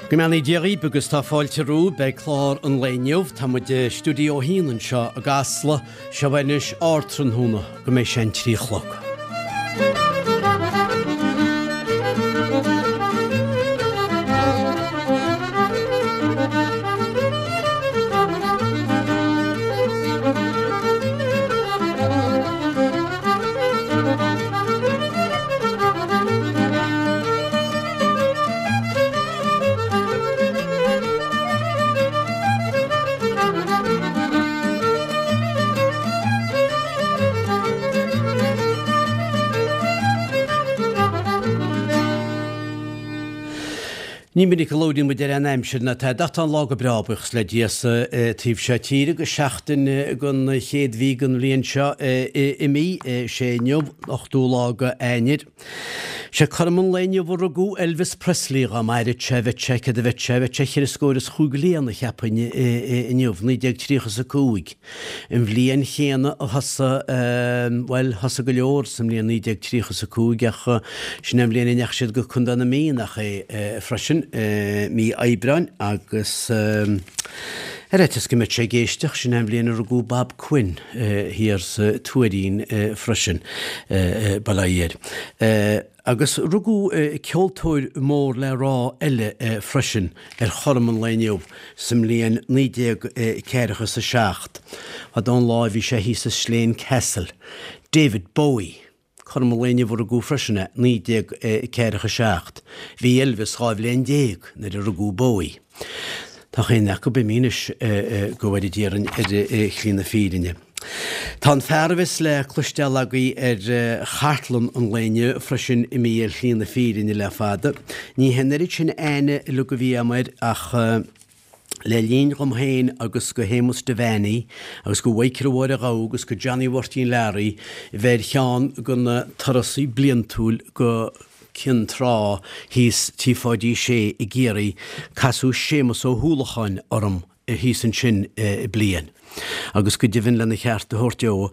Go mbeannaí Dia dhaoib agus tá fáilte romhaibh beidh clár an lae inniu. Tá muid i Stiúideo 1 anseo i gCasla. Seo anois Ardtráthnóna go mbeidh sé an 3 a chlog. Ní minic a labhraíonn muid ar an aimsir ná tada ach tá an lá go breá, buíochas le Dia sa taobh seo tíre agus seachtain den chéad mhí den bhliain seo imithe. Sé inniu an 8ú lá de Eanáir. Sé cothrom an lae inniu a rugadh Elvis Presley, dhá maireadh sé, bheadh sé, céard a bheadh sé, bheadh sé cheithre scór is chúig bhliain, cheapfainn, inniu, 1935, an bhliain chéanna a thosaigh, bhuel, thosaigh go leor sa mbliain 1935 ach sin é an bhliain a ndeachaigh siad go Contae na Mí, nach é, freisin, mí Aibreáin agus ar fhaitíos go mbeadh sé ag éisteacht, sin é an bhliain a rugadh Bob Quinn. thiar sa Tuairín freisin, bail ó Dhia air. Agus rugadh ceoltóir mór le rá eile freisin ar chothrom an lae inniu sa mbliain 1947, fadó an lá a bhí sé thíos i Slane Castle, David Bowie. Cothrom an lae inniu a rugadh freisin é, 1947. Bhí Elvis 12 bhliain nuair a rugadh Bowie. Tá chaon acu imithe anois, go bhfóire Dia orainn ar shlí na fírinne. Tá an fear a bheas le cloisteáil agaibh ar chartlann an lae inniu freisin imithe ar shlí na fírinne le fada. Ní hé an oiread sin aithne uilig a bhí agam air ach, Le linn dhom féin agus go Shéamus Devaney agus go Mhichael Mháire Ghabha agus go Johnny Mháirtín Learaí bheith ar cheann de na turasaí bliantúil go Cionn Trá thíos Tí Pháidí Sé i gCiarraí, casadh Séamus Ó hUallacháin orm thíos ansin bliain. Agus go deimhin lena cheart a thabhairt dó,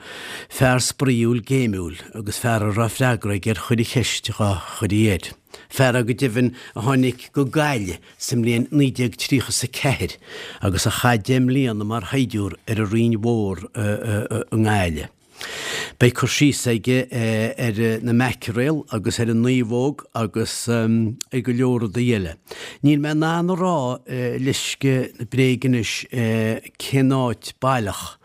fear spraíúil géimiúil agus fear a raibh freagra aige ar chuile cheist dhá chuirfí air. Fear é go deimhin a tháinig go Gaillimh sa mbliain 1934 agus a chaith 10 mbliana mar shaighdiúr ar an Rinn Mhór i nGaillimh. Beidh cur síos aige ar na maicréil agus ar an naomhóg agus ar go leor rudaí eile. Níl mé in ann a rá leisce na bréige anois cén áit baileach.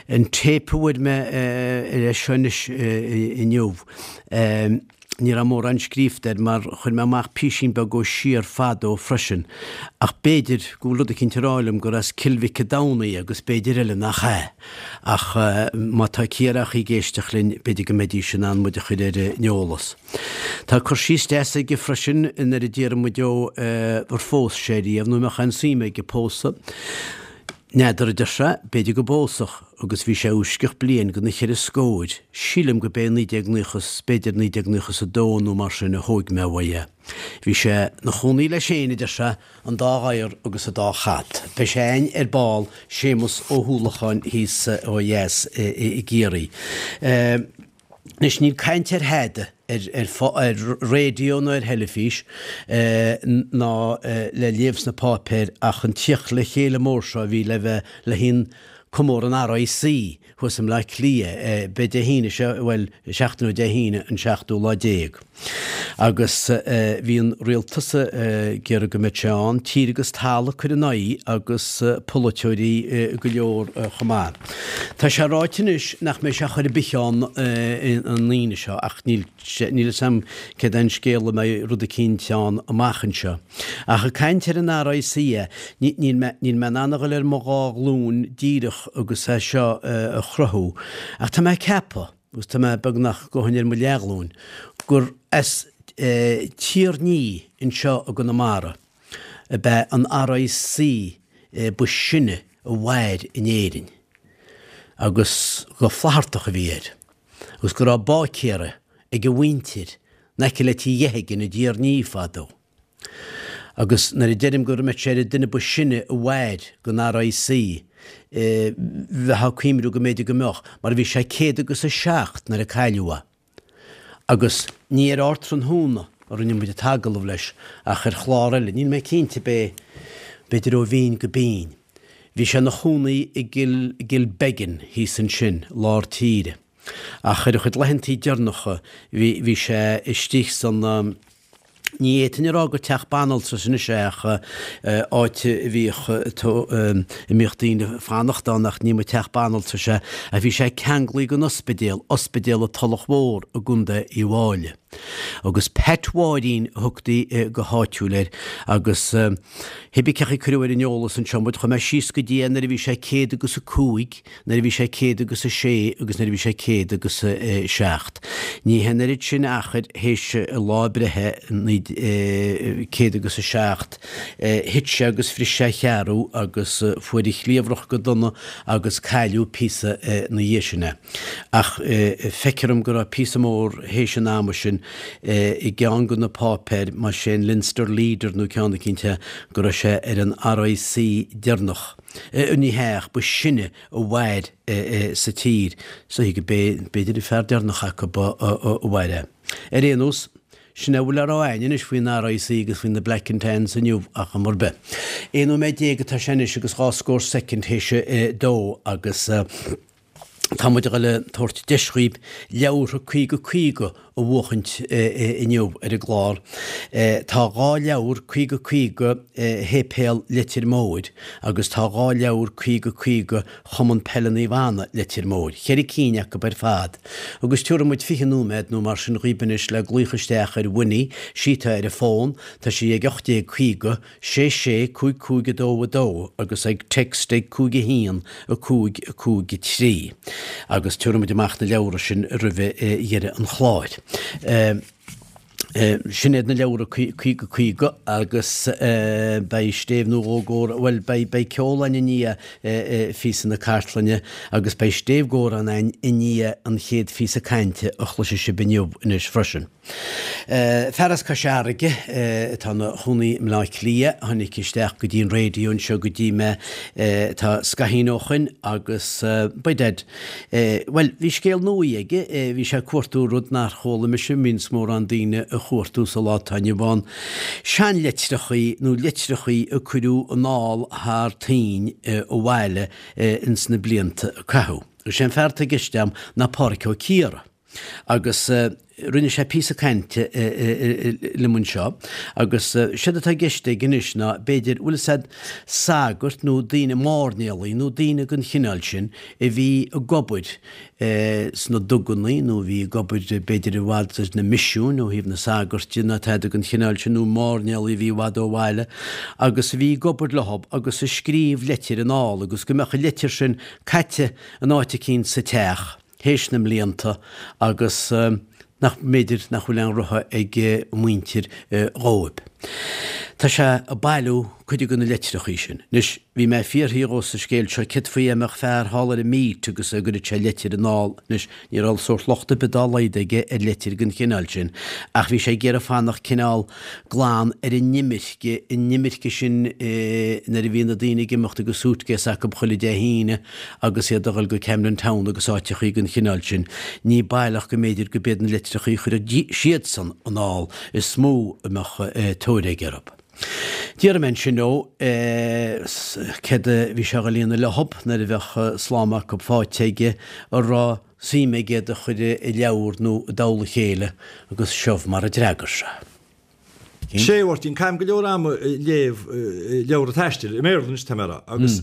An téip a fuair mé ar é seo anois inniu. Ní raibh mórán scríofa air mar chuir mé amach písín beag ó siar fadó freisin, ach b'fhéidir go bhfuil rud eicínt ag rá liom gur as Cill Mhic a' Domhnaigh é agus b'fhéidir eile nach ea. Ach má tá Ciarraíoch ag éisteacht linn b'fhéidir go mbeidís in ann muid a chur ar an eolas. Tá cur síos deas aige freisin nuair a d'iarr muid dó ar phós sé riamh nó an mbeadh aon suim aige pósadh. N'fheadar, a deir sé, b'fhéidir go bpósfadh, agus bhí sé uaisceach bliain go na cheithre scóir, sílim go b'é 1990 's b'fhéidir 1992 nó mar sin a thóig mé uaidh é. Bhí sé 'na chónaí leis féin, a deir sé, an dá ghadhar agus an dá chat. Beidh sé a'inn ar ball, Séamus Ó hUallacháin thíos ó dheas i gCiarraí. Anois, níl caint ar thada ar raidió ná ar theilifís ná le léamh sna páipéir ach an tíocht le chéile mór seo a bhí le bheith le haghaidh comóradh an RIC thuas i mBleá Cliath. Beidh Dé hAoine seo, bhuel, seachtain ó Dé hAoine an seachtú lá déag. Agus bhí an rialtas ag iarraidh go mbeadh sé ann, tír agus talamh ag cur ina aghaidh agus polaiteoirí go leor chomh maith. Tá sé ráite anois nach mbeidh sé chor ar bith ann an Aoine seo ach níl níl fhios a'm céard é an scéal an mbeidh rud eicínt ann amach anseo. Ach ag caint ar an RIC, níl mé níl mé in ann a dhul ar mo dhá ghlúin díreach agus é seo a chruthú ach tá mé ag ceapadh, agus tá mé beagnach gabhaim ar mo leathghlúin, gur as Tír Ní anseo i gConamara ab ea an RIC ba sine a mhair in Éirinn, agus gur Flaitheartach a bhí air, agus go raibh báicéara ag a mhuintir in aice le Tigh Gheithigean i dTír Ní fadó. Agus nuair a deirim go mbeadh sé ar an duine ba sine a mhair den RIC, bheifeá ag cuimhniú go mb'fhéidir go mbeadh, mar bhí sé céad agus a seacht nuair a cailleadh é. Agus ní ar Ardtráthnóna. a rinne muid an t-agallamh leis ach ar chlár eile, níl mé cinnte ab é, b'fhéidir ó bhinn go binn. Bhí sé ina chónaí i gCill, gCilbeggan thíos ansin, lár tíre. Ach ar a chuid laethantaí deireanacha bhí, bhí sé istigh san, ní fhéadfainn a rá gur teach banaltrais anois é ach áit a bhíodh, a mbíodh daoine ag fanacht ann ach ní mba teach banaltrais é ach bhí sé ceanglaithe den ospidéal, Ospidéal an Tulach Mhór i gContae Uíbh Fháilí. Agus Pat Mháirín a thugtaí go háitiúil air agus cibé cén chaoi a cuireadh ar an eolas anseo muid, chuaigh mé síos go dtí é nuair a bhí sé céad agus a cúig, nuair a bhí sé céad agus a sé agus nuair a bhí sé céad agus a seacht. Ní hé an oiread sin achair théis a lá breithe, céad agus a seacht, thit sé agus bhris sé a cheathrú agus fuair a chliabhrach go dona agus cailleadh píosa ina dhiaidh sin é. Ach feictear dom go raibh píosa mór théis an ama sin i gceann de na páipéir, más é an Leinster Leader nó ceann eicínt é, go raibh sé ar an RIC deireanach. Ní hea, ach ba shine a mhair sa tír. So b'fhéidir an fear deireanach acu a mhair é. Ar aon nós, Sin é a bhfuil le rá a'inn anois faoin RIC agus faoi na Black and Tans inniu ach am ar bith. 11 nóiméad atá sé anois agus dhá scór soicind théis a dó agus tá muid a dhul a tabhairt deis dhaoib leabhartha 50 50 a bhuachaint inniu ar an gclár. Tá dhá leabhar 50 50 Shéipéal Leitir Móir agus tá dhá leabhar 50 50 Chumann Peile Naomh Anna Leitir Móir, cheithre cinn acu ar fad. Agus tiúrfaidh muid 20 nóiméad nó mar sin dhaoib anois le glaoch isteach ar Winnie, sí atá ar an bhfón, tá sí ag 1850 6 6 5 5 2 2 agus ag text ag 5 1 5 5 3. Agus tiúrfaidh muid amach na leabhra sin roimhe dheireadh an chláir. Sin iad na leabhra 50 50 agus beidh stéibh nó dhó gcomhrá, bhuel, beidh, beidh ceol a'inn i ndiaidh phíosa na cartlainne agus beidh stéibh gcomhrá a'inn i ndiaidh an chéad phíosa cainte a chloisfidh sibh inniu anois freisin. Fear as Cois Fharraige atá ina chónaí i mBleá Cliath, tháinig isteach go dtí an raidió anseo go dtí mé tá scaithín ó shoin agus by dad, Bhuel, bhí scéal nua aige, bhí sé ag cuartú rud nár chuala mise, mbíonns mórán daoine a chuartú sa lá atá inniu ann, seanleitreachaí nó litreachaí a cuireadh anall thar toinn abhaile ins na blianta a caitheadh. Is é an fear atá i gceist a'm ná Pádhraic Ó Ciardha. Agus rinne sé píosa cainte liom anseo agus séard atá i gceist aige anois ná b'fhéidir, bhfuil fhios a'd, sagairt nó daoine, mairnéalaigh nó daoine den chineál sin a bhí ag obair sna dugannaí nó a bhí ag obair b'fhéidir i bhfad sna misiúin ó thaobh na sagairt de nó tada den chineál sin nó mairnéalaigh a bhí i bhfad ó bhaile agus a bhí ag obair leothab agus a scríobh leitir anall agus go mbeadh an leitir sin caite in áit eicínt sa teach. théis na mblianta agus nach mb'fhéidir nach bhfuil aon rogha ag a muintir dhóib. Tá sé ag bailiú cuid de na litreachaí sin. Anois, bhí mé ag fiafraí dhó sa scéal seo céard faoi dá mbeadh fear thall ar an Meath agus a gcuireadh sé leitir anall. Anois, ní raibh sórt locht ar bith dá laghad aige ar leitir den chineál sin, ach bhí sé ag iarraidh fanacht cineál glan ar an imirce, an imirce sin nuair a bhí na daoine ag imeacht agus suitcase acu chuile Dé hAoine agus iad a dhul go Camden Town agus áiteachaí den chineál sin, ní baileach go mb'fhéidir go b'iad na litreachaí a chuireadh siadsan anall is mó a mbeadh tóir aige orthu. D'fhiafraigh mé ansin dhó céard a bhí sé a dhul a dhéanamh leothab nuair a bheadh slám acu faighte aige, an raibh suim aige iad a chur i leabhar nó i dtoll a chéile agus seo mar a d'fhreagair sé. Sea, a Mháirtín, caithim go leor ama ag léamh leabhra taistil, i mBéarla anois tá mé a rá, agus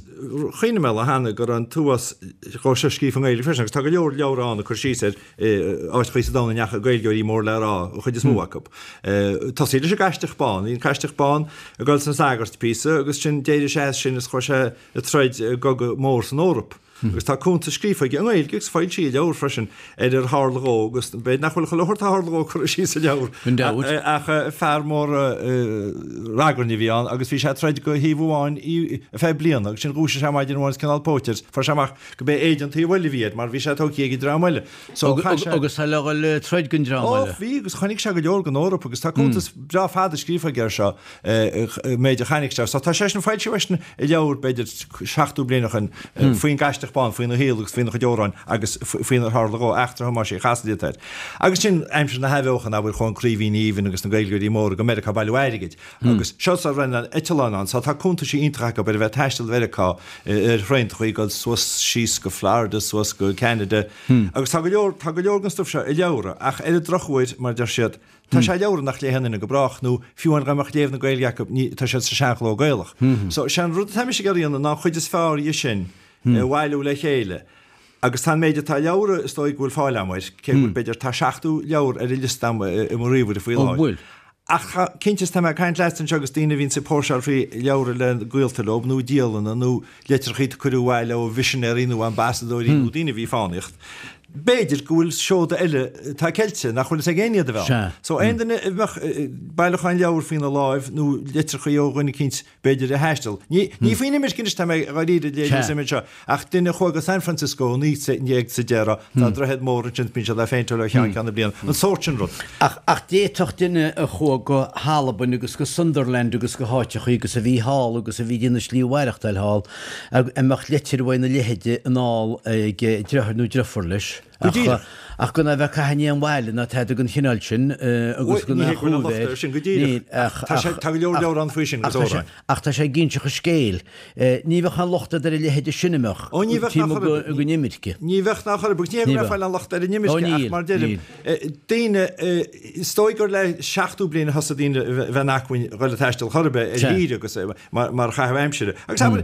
chuimhnigh mé lá cheana go raibh an t-uafás dhó seo scríofa i nGaeilge freisin, agus tá go leor leabhra ann ag cur síos ar áiteachaí sa domhan a ndeachaigh Gaeilgeoirí mór le rá, an chuid is mó acu. Tosaí leis an gCaisideach Bán, bhí an Caisideach Bán ag dul sna sagairt píosa agus sin d'éirigh sé as sin is chuaigh sé ag troid i gcogadh mór san Eoraip. Agus tá cuntas scríofa aige i nGaeilge agus foilsíodh i leabhar freisin ar ar tharla dhó agus b'fhéidir nach bhfuil chuile shórt a tharla dhó curtha síos sa leabhar ach fear mór ragairne a bhí ann agus bhí sé ag troid go thaobh amháin ar feadh bliana agus sin dhúisigh sé maidin amháin is cineál póit air fuair sé amach go b'é éide an taobh eile a bhí air mar bhí sé tógtha ag an dream eile. So chaith sé. Agus é le dhul ag troid don dream eile. Ó bhí agus chonaic sé go leor den Eoraip agus tá cuntas breá fada scríofa aige air seo. méid a chonaic sé. So tá sé sin foilsithe freisin i leabhar b'fhéidir 70 bliain ó shin faoin gCaisideach. aisteach bán faoina shaol agus faoina chuid amhráin agus faoinar tharla dhó, Eachtra Thomáis Uí Chasaide atá air. Agus sin aimsir na hAthbheochana, abair, chuaigh an Craoibhín Aoibhinn agus na Gaeilgeoirí móra go Meiriceá ag bailiú airgid. Agus seo sara raibh na eitleáin ann, so tá cuntaisí iontacha acu ar a bheith ag taisteal Mheiriceá ar thraenachaí, ag dul suas síos go Florida, suas go Ceanada. Agus tá go leor, tá go leor den stuif seo i leabhra, ach ar an drochuair, mar a deir siad, tá sé i leabhra nach léifeadh aon duine go brách, nó fiú amháin dá mbeadh léamh na Gaeilge acu, ní, tá siad sa seanchló Gaelach. So, sé an rud atá mise ag iarraidh a dhéanamh ná an chuid is fearr dhe sin a bhailiú le chéile. Agus tá an méid atá i leabhra, is dóigh go bhfuil fáil agam air, cé go bhfuil, b'fhéidir, tá 70 leabhar ar an liosta agam i mo ríomhaire faoi láthair. Bhfuil? Ach tá, cinnte, is tá mé ag caint leatsa anseo agus daoine a bhíonns ag póirseáil faoi leabhra le gaolta leo, nó dialanna, nó litreachaí a cuireadh abhaile ó mhisinéirí nó ambasadóirí nó daoine a bhí ag fánaíocht. B'fhéidir go bhfuil seoda eile atá ceilte, nach bhfuil fhios ag éinne iad a bheith ann. So aon duine a mbeadh bailiúchán leabhar faoina láimh nó litreachaí ó dhuine eicínt, b'fhéidir, a thaistil. Ní ní faoin imirce anois tá mé dháiríre ag léiriú suim anseo, ach duine a chuaigh go San Francisco i 1910, tá droichead mór ansin, bíonn siad á phéinteáil ó cheann ceann na bliana, an sórt sin rud. Ach ach d'fhéadfadh duine a chuaigh go hAlbain agus go Sunderland agus go háiteachaí agus a bhí thall agus a bhí ag déanamh slí a mhaireachtáil thall, a mbeadh leitir uaidh ina leithide anall ag deartháir nó deirfiúr leis. Go díreach. Ach gan a bheith ag caitheamh in aon bhaile ná tada den chineál sin agus gan aon chúl air. Sin go díreach. Tá sé, tá go leor leabhar ann faoi sin agus amhráin. Ach tá sé ag inseacht an scéil. Ní bheadh aon locht agat ar a leithéide sin a mbeadh Ó ní bheadh ná chor ar bith. den imirce. Ní bheadh ná chor ar bith. Agus ní hé go mbeadh fáil aon locht ar an imirce ach mar deirim, daoine, is dóigh gur le 70 bliain a thosaigh daoine a bheith in acmhainn dhul ag taisteal chor ar bith ar thír agus mar chaitheamh aimsire. Agus abair,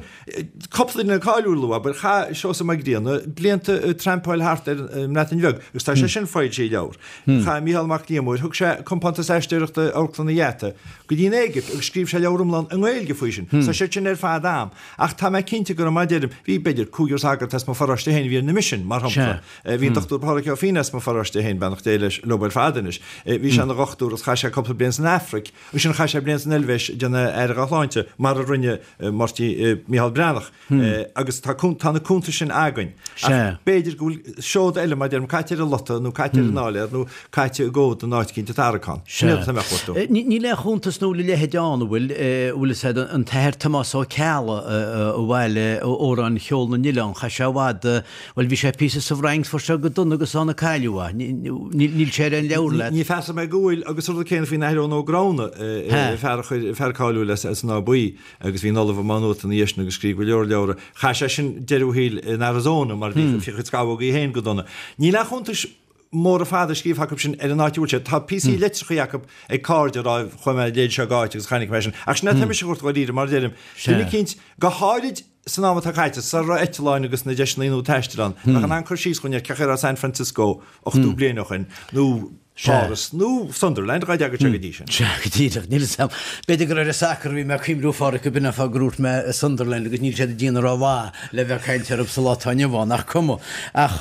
Cúpla duine cáiliúil a lua, abair, chaith Seosamh Mac Grianna blianta ag trampáil thart ar an mBreatain Bheag agus tá sé sin foilsithe i leabhar. Chaith Mícheál Mac Liammóir, thug sé compántas aisteoireachta Amharclann an Gheata go dtí an Éigipt agus scríobh sé leabhar iomlán i nGaeilge faoi sin. Tá siad sin ar fad a'm. Ach tá mé cinnte go raibh, mar a deirim, bhí b'fhéidir cúigear sagart as mo pharóiste féin a bhí ar na misin, mar shampla. Bhí an Dr Pádraig Ó Fianna as mo pharóiste féin, beannacht Dé leis, leo ar fad anois. Bhí sé ina dhochtúir agus chaith sé cúpla bliain san Afraic. Ansin chaith sé bliain san Eilvéis ag déanamh aire dá shláinte, mar a rinne Máirtín, Micheál Breathnach. Agus tá tá na cuntais sin againn. Ach b'fhéidir go bhfuil seoda eile, mar a deirim, caite ar an lota nó caite ar an áiléar nó caite i gcomhad in áit eicínt i dtarraiceán. Sin iad atá mé a chuartú. Níl aon chuntas nó a leithéid ann, an bhfuil, bhfuil fhios a'd, an tAthair Tomás Ó Ceallaigh a bhailigh amhráin cheol na n-oileán, chaith sé i bhfad Bhuel, bhí sé píosa sa bhFrainc, fuair sé go dona agus ann a cailleadh é. Níl sé ar aon leabhar leat. Ní feasach mé go bhfuil, agus an rud céanna faoin Athair Eoin Ó Gramhna, fear a chuir, fear cáiliúil as an Áth Buí, agus bhí ina ollamh i Má Nuat ina dhiaidh sin agus scríobh go leor leabhra. Chaith sé sin deireadh a shaoil in Arizona mar bhí a chuid scamhógaí féin go dona. Níl aon chuntais móra fada scríofa acu sin ar an áit a bhfuil sé. Tá píosaí litreachaí acu ag cairde ag rá chuaigh mé an léid seo go áit agus chonaic mé sin. Ach sin é atá mise a chuartú dháiríre, mar a deirim, duine eicínt, go háirid, San am atá caite, sara raibh eitleáin agus na deiseanna nua taistil ann, bheadh in ann cur síos dhúinn ar cén chaoi a raibh San Francisco 80 bliain ó shin, nó Páras, nó Sunderland, dhá dteaga sé go dtí sin. Sea, go díreach. Níl 'fhios a'm. B'fhéidir gur ar an sacar a bhí mé ag cuimhniú, a Pháraic, go b'in an fáth gur dhúirt mé Sunderland agus níl siad ag déanamh rómhaith le bheith ag caint orthu sa lá atá inniu ann, ach cuma. Ach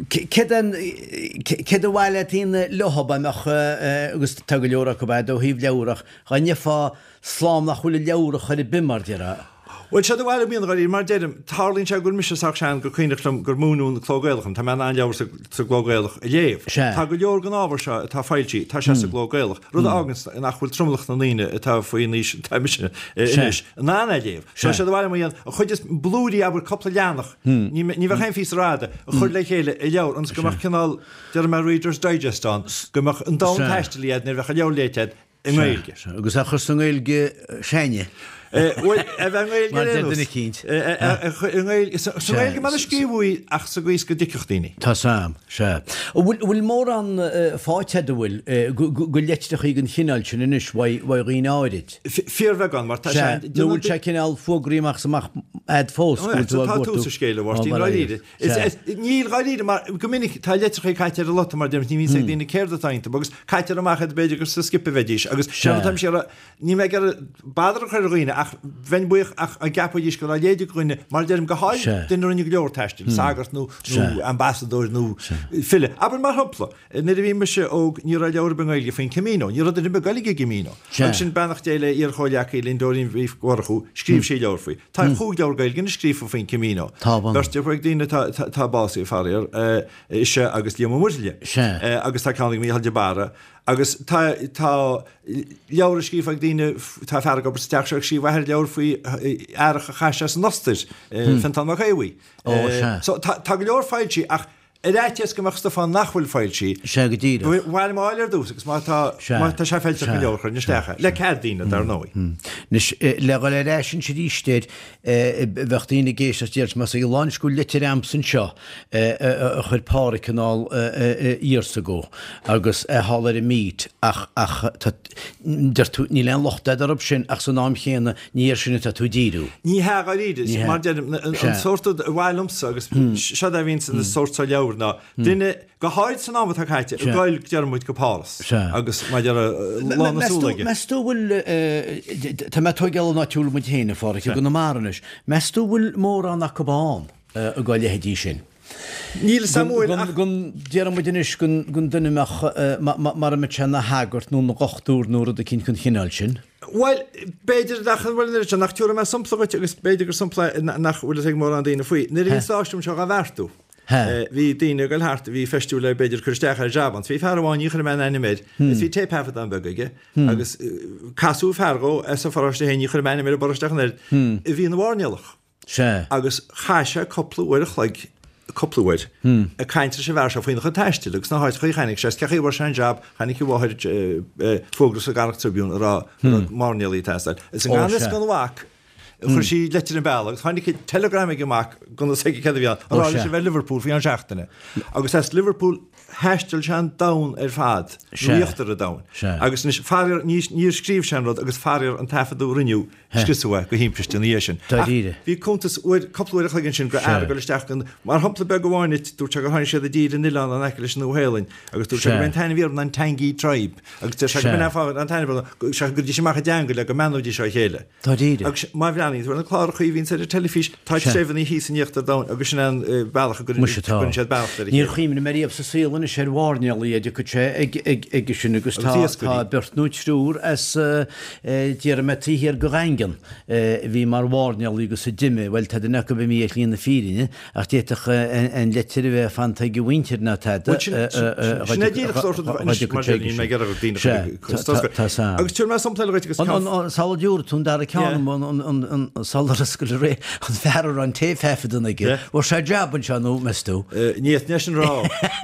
céard céard ba mhaith leat a dhéanamh leo, dá mbeadh, agus tá go leor acu a'd ó thaobh leabhar ach dhá ngeofá Slám nach bhfuil i leabhar chor ar bith, mar déarfá. Bhuel, séard ba mhaith liom a dhéanamh dháiríre, mar deirim, tarlaíonn sé go bhfuil mise sách sean gur cuimhneach liom gur múineadh an cló Gaelach dom, tá mé in ann leabhar sa gcló Gaelach a léamh. Sea. Tá go leor den ábhar seo atá foilsithe, tá sé sa gcló Gaelach, rud a fháganns nach bhfuil tromlach na ndaoine atá faoin aois atá mise anois in ann é a léamh. So séard ba mhaith liom a dhéanamh, an chuid is blúirí, abair, cúpla leathanach, ní bheadh aon phíosa rófhada, a chur le chéile i leabhar ionas go mbeadh cineál, déarfaidh mé Reader's Digest ann, go mbeadh an domhan taistil agat nuair a bheadh an leabhar léite agat, i nGaeilge. Sea, agus a chur sa nGaeilge s'againne. Bhuel, a bheith i nGaeilge Mar deir duine eicínt. I nGaeilge, sa Ghaeilge mar a scríobhadh í ach sa gcaoi is go dtuigfeadh daoine. Tá 'sam, sea. An bhfuil, bhfuil mórán faighte agat, an bhfuil, go leitreachaí den chineál sin anois uaidh dhaoine áirid? Fíorbheagán, mar tá sé. Sea, nó bhfuil sé cineál fuagraí amach is amach a'd fós go bhfuil tú á gcuartú? Tá tús an scéil, a Mháirtín, dáiríre. Níl, dháiríre, mar go minic tá litreacha caite ar an lota mar deirim, ní bhíonn 's ag daoine céard atá iontu agus caitear amach iad b'fhéidir gur sa scipe a bheidís agus séard atá mise ag iarraidh, níl mé ag iarraidh bother a chur ar dhaoine ach bheinn buíoch ach dá gceapfaidís go raibh a leithéid ag dhuine, mar a deirim, go háirid duine a rinne go leor taistil, sagart nó ambasadóir nó file. Abair mar shampla, Nuair a bhí mise óg ní raibh leabhar ar bith i nGaeilge faoin Camino. Ní raibh duine ar bith ag goil ag an gCamino. Agus ansin beannacht Dé le iar-chomhghleacaí linn Dóirín Mhí Mhurchú, scríobh sí leabhar faoi. Tá chúig leabhar Gaeilge anois scríofa faoin Camino. Beirt ag daoine atá básaithe faraor, ise agus Liam Ó Muirthile. Agus tá ceann ag Mícheál de Barra. Agus tá, tá leabhra scríofa ag daoine, tá fear ag obair sa teach seo ag scríobh athair leabhar faoi earrach a chaith sé san Ostair, Fintán Mac Aodha Bhuí. Ó, sea. So tá, tá go leor foilsithe ach ar fhaitíos go mbeadh stuif ann nach bhfuil foilsithe. Sea, go díreach. Ba mhaith liom a fháil ar dtús agus má tá, Sea. má tá sé feilteach Sea. go leor chuirfinn isteach é. Le cead daoine, dar ndóigh. Anois, le dhul ar ais anois arís air, Bheadh daoine ag éisteacht déarfaidh más ag lán go bhfuil litir a'msa anseo a chuir Pádhraic anall years ago agus é thall ar an meet ach ach tá deir tú níl aon locht a'd orthu sin ach san am chéanna ní air sin atá tú ag díriú. Ní hea dháiríre, Ní hea. mar deirim, an Sea. sórt rud a mhaith liomsa agus seo é a bhíonn sa sórt seo leabhar ná duine Go háirid san am atá caite, ag goil, deir muid, go Páras agus mar a déarfá lán na súl aige. Meas tú bhfuil, tá mé ag tóigeáil an áit a bhfuil muid féin, a Pháraic, i gConamara anois, meas tú bhfuil mórán acu ann dá leithéidí sin? Níl a fhios a'm bhfuil ach. Gon, déarfaidh muid anois gon duine a mbeadh, mara mbeadh sé ina shagart nó ina dhochtúir nó rud eicínt den chineál sin. Bhuel, b'fhéidir nach bhfuil an oiread sin, ach tabharfaidh mé sampla dhuit agus b'fhéidir gur sampla é nach bhfuil fhios ag mórán daoine faoi. Nuair a bhí an stáisiún seo á bheartú, Bhí daoine ag goil thart a bhí feistiú le b'fhéidir cur isteach ar jab ann. Bhí fear amháin, ní chuirfidh mé an ainm air, is bhí téipthaifeadán beag aige agus casadh fear dhó as a pharóiste féin, ní chuirfidh mé ainm ar an bparóiste ach an oiread, a bhí ina mhairnéalach. Sea. Agus chaith sé cúpla uair a chloig, cúpla uair, ag caint leis an bhfear seo faoina chuid taistil agus na háiteacha a chonaic sé, is cé chaoi a bhfuair sé an jab, chonaic a mháthair fógra sa gCarraig Tribune a rá go raibh mairnéalaigh ag teastáil. Is i ngan fhios don mhac, Chuir sí leitir an bealach agus tháinig telegram ag an mac gan fhios aige céard a bhí ann, a rá leis a bheith i Liverpool faoi cheann seachtaine. Agus as Liverpool thaistil sé an domhan ar fad, nó íochtar an domhain. Agus anois, faraor, níor scríobh sé an rud agus faraor an taifeadadh a rinneadh, scriosadh é go thimpiste ina dhiaidh sin. Ach bhí cuntas uair, cúpla uair a chloig ansin go fhear ag dul isteach go, mar shampla beag amháin duit, dúirt sé gur tháinig siad i dtír in oileán in aice leis an Nua-Shéalainn agus dúirt sé gurb é an t-ainm a bhí orthu ná an Tangi Tribe agus deir sé go b'in é an fáth an t-ainm orthu, go gcuiridís amach a dteanga le go mbeannóidís á chéile. Dáiríre. Agus má bhreathnaíonn tú ar na cláracha a bhíonns ar an teilifís, tá treibheanna thíos in íochtar domhain agus sin é an bealach a gcuireann siad beannacht ar a chéile. Níor chuimhnigh mé riamh sa saol anois ar mhairnéalaigh a dtiocfadh sé ag sin agus tá beirt nó triúr as déarfaidh mé taobh thiar de Dhaingean a bhí mar mhairnéalaigh agus a d'imigh, bhuel tá duine acu imithe ar shlí na fírinne Ach d'fhéadfadh an litir a bheith fanta ag a mhuintir ná tada Bhuel, sin sin é díreach sórt rud anois mar sin níl mé ag iarraidh daoine a chur ag Tá Tá Agus tabharfaidh mé sampla eile dhuit agus ceann An sula dtabharfaidh tú an dara ceann an sula scaoileadh ré an fear a raibh an téipthaifeadán aige. Bhfuair sé jab anseo nó meas tú? Ní fhéadfainn é sin a rá.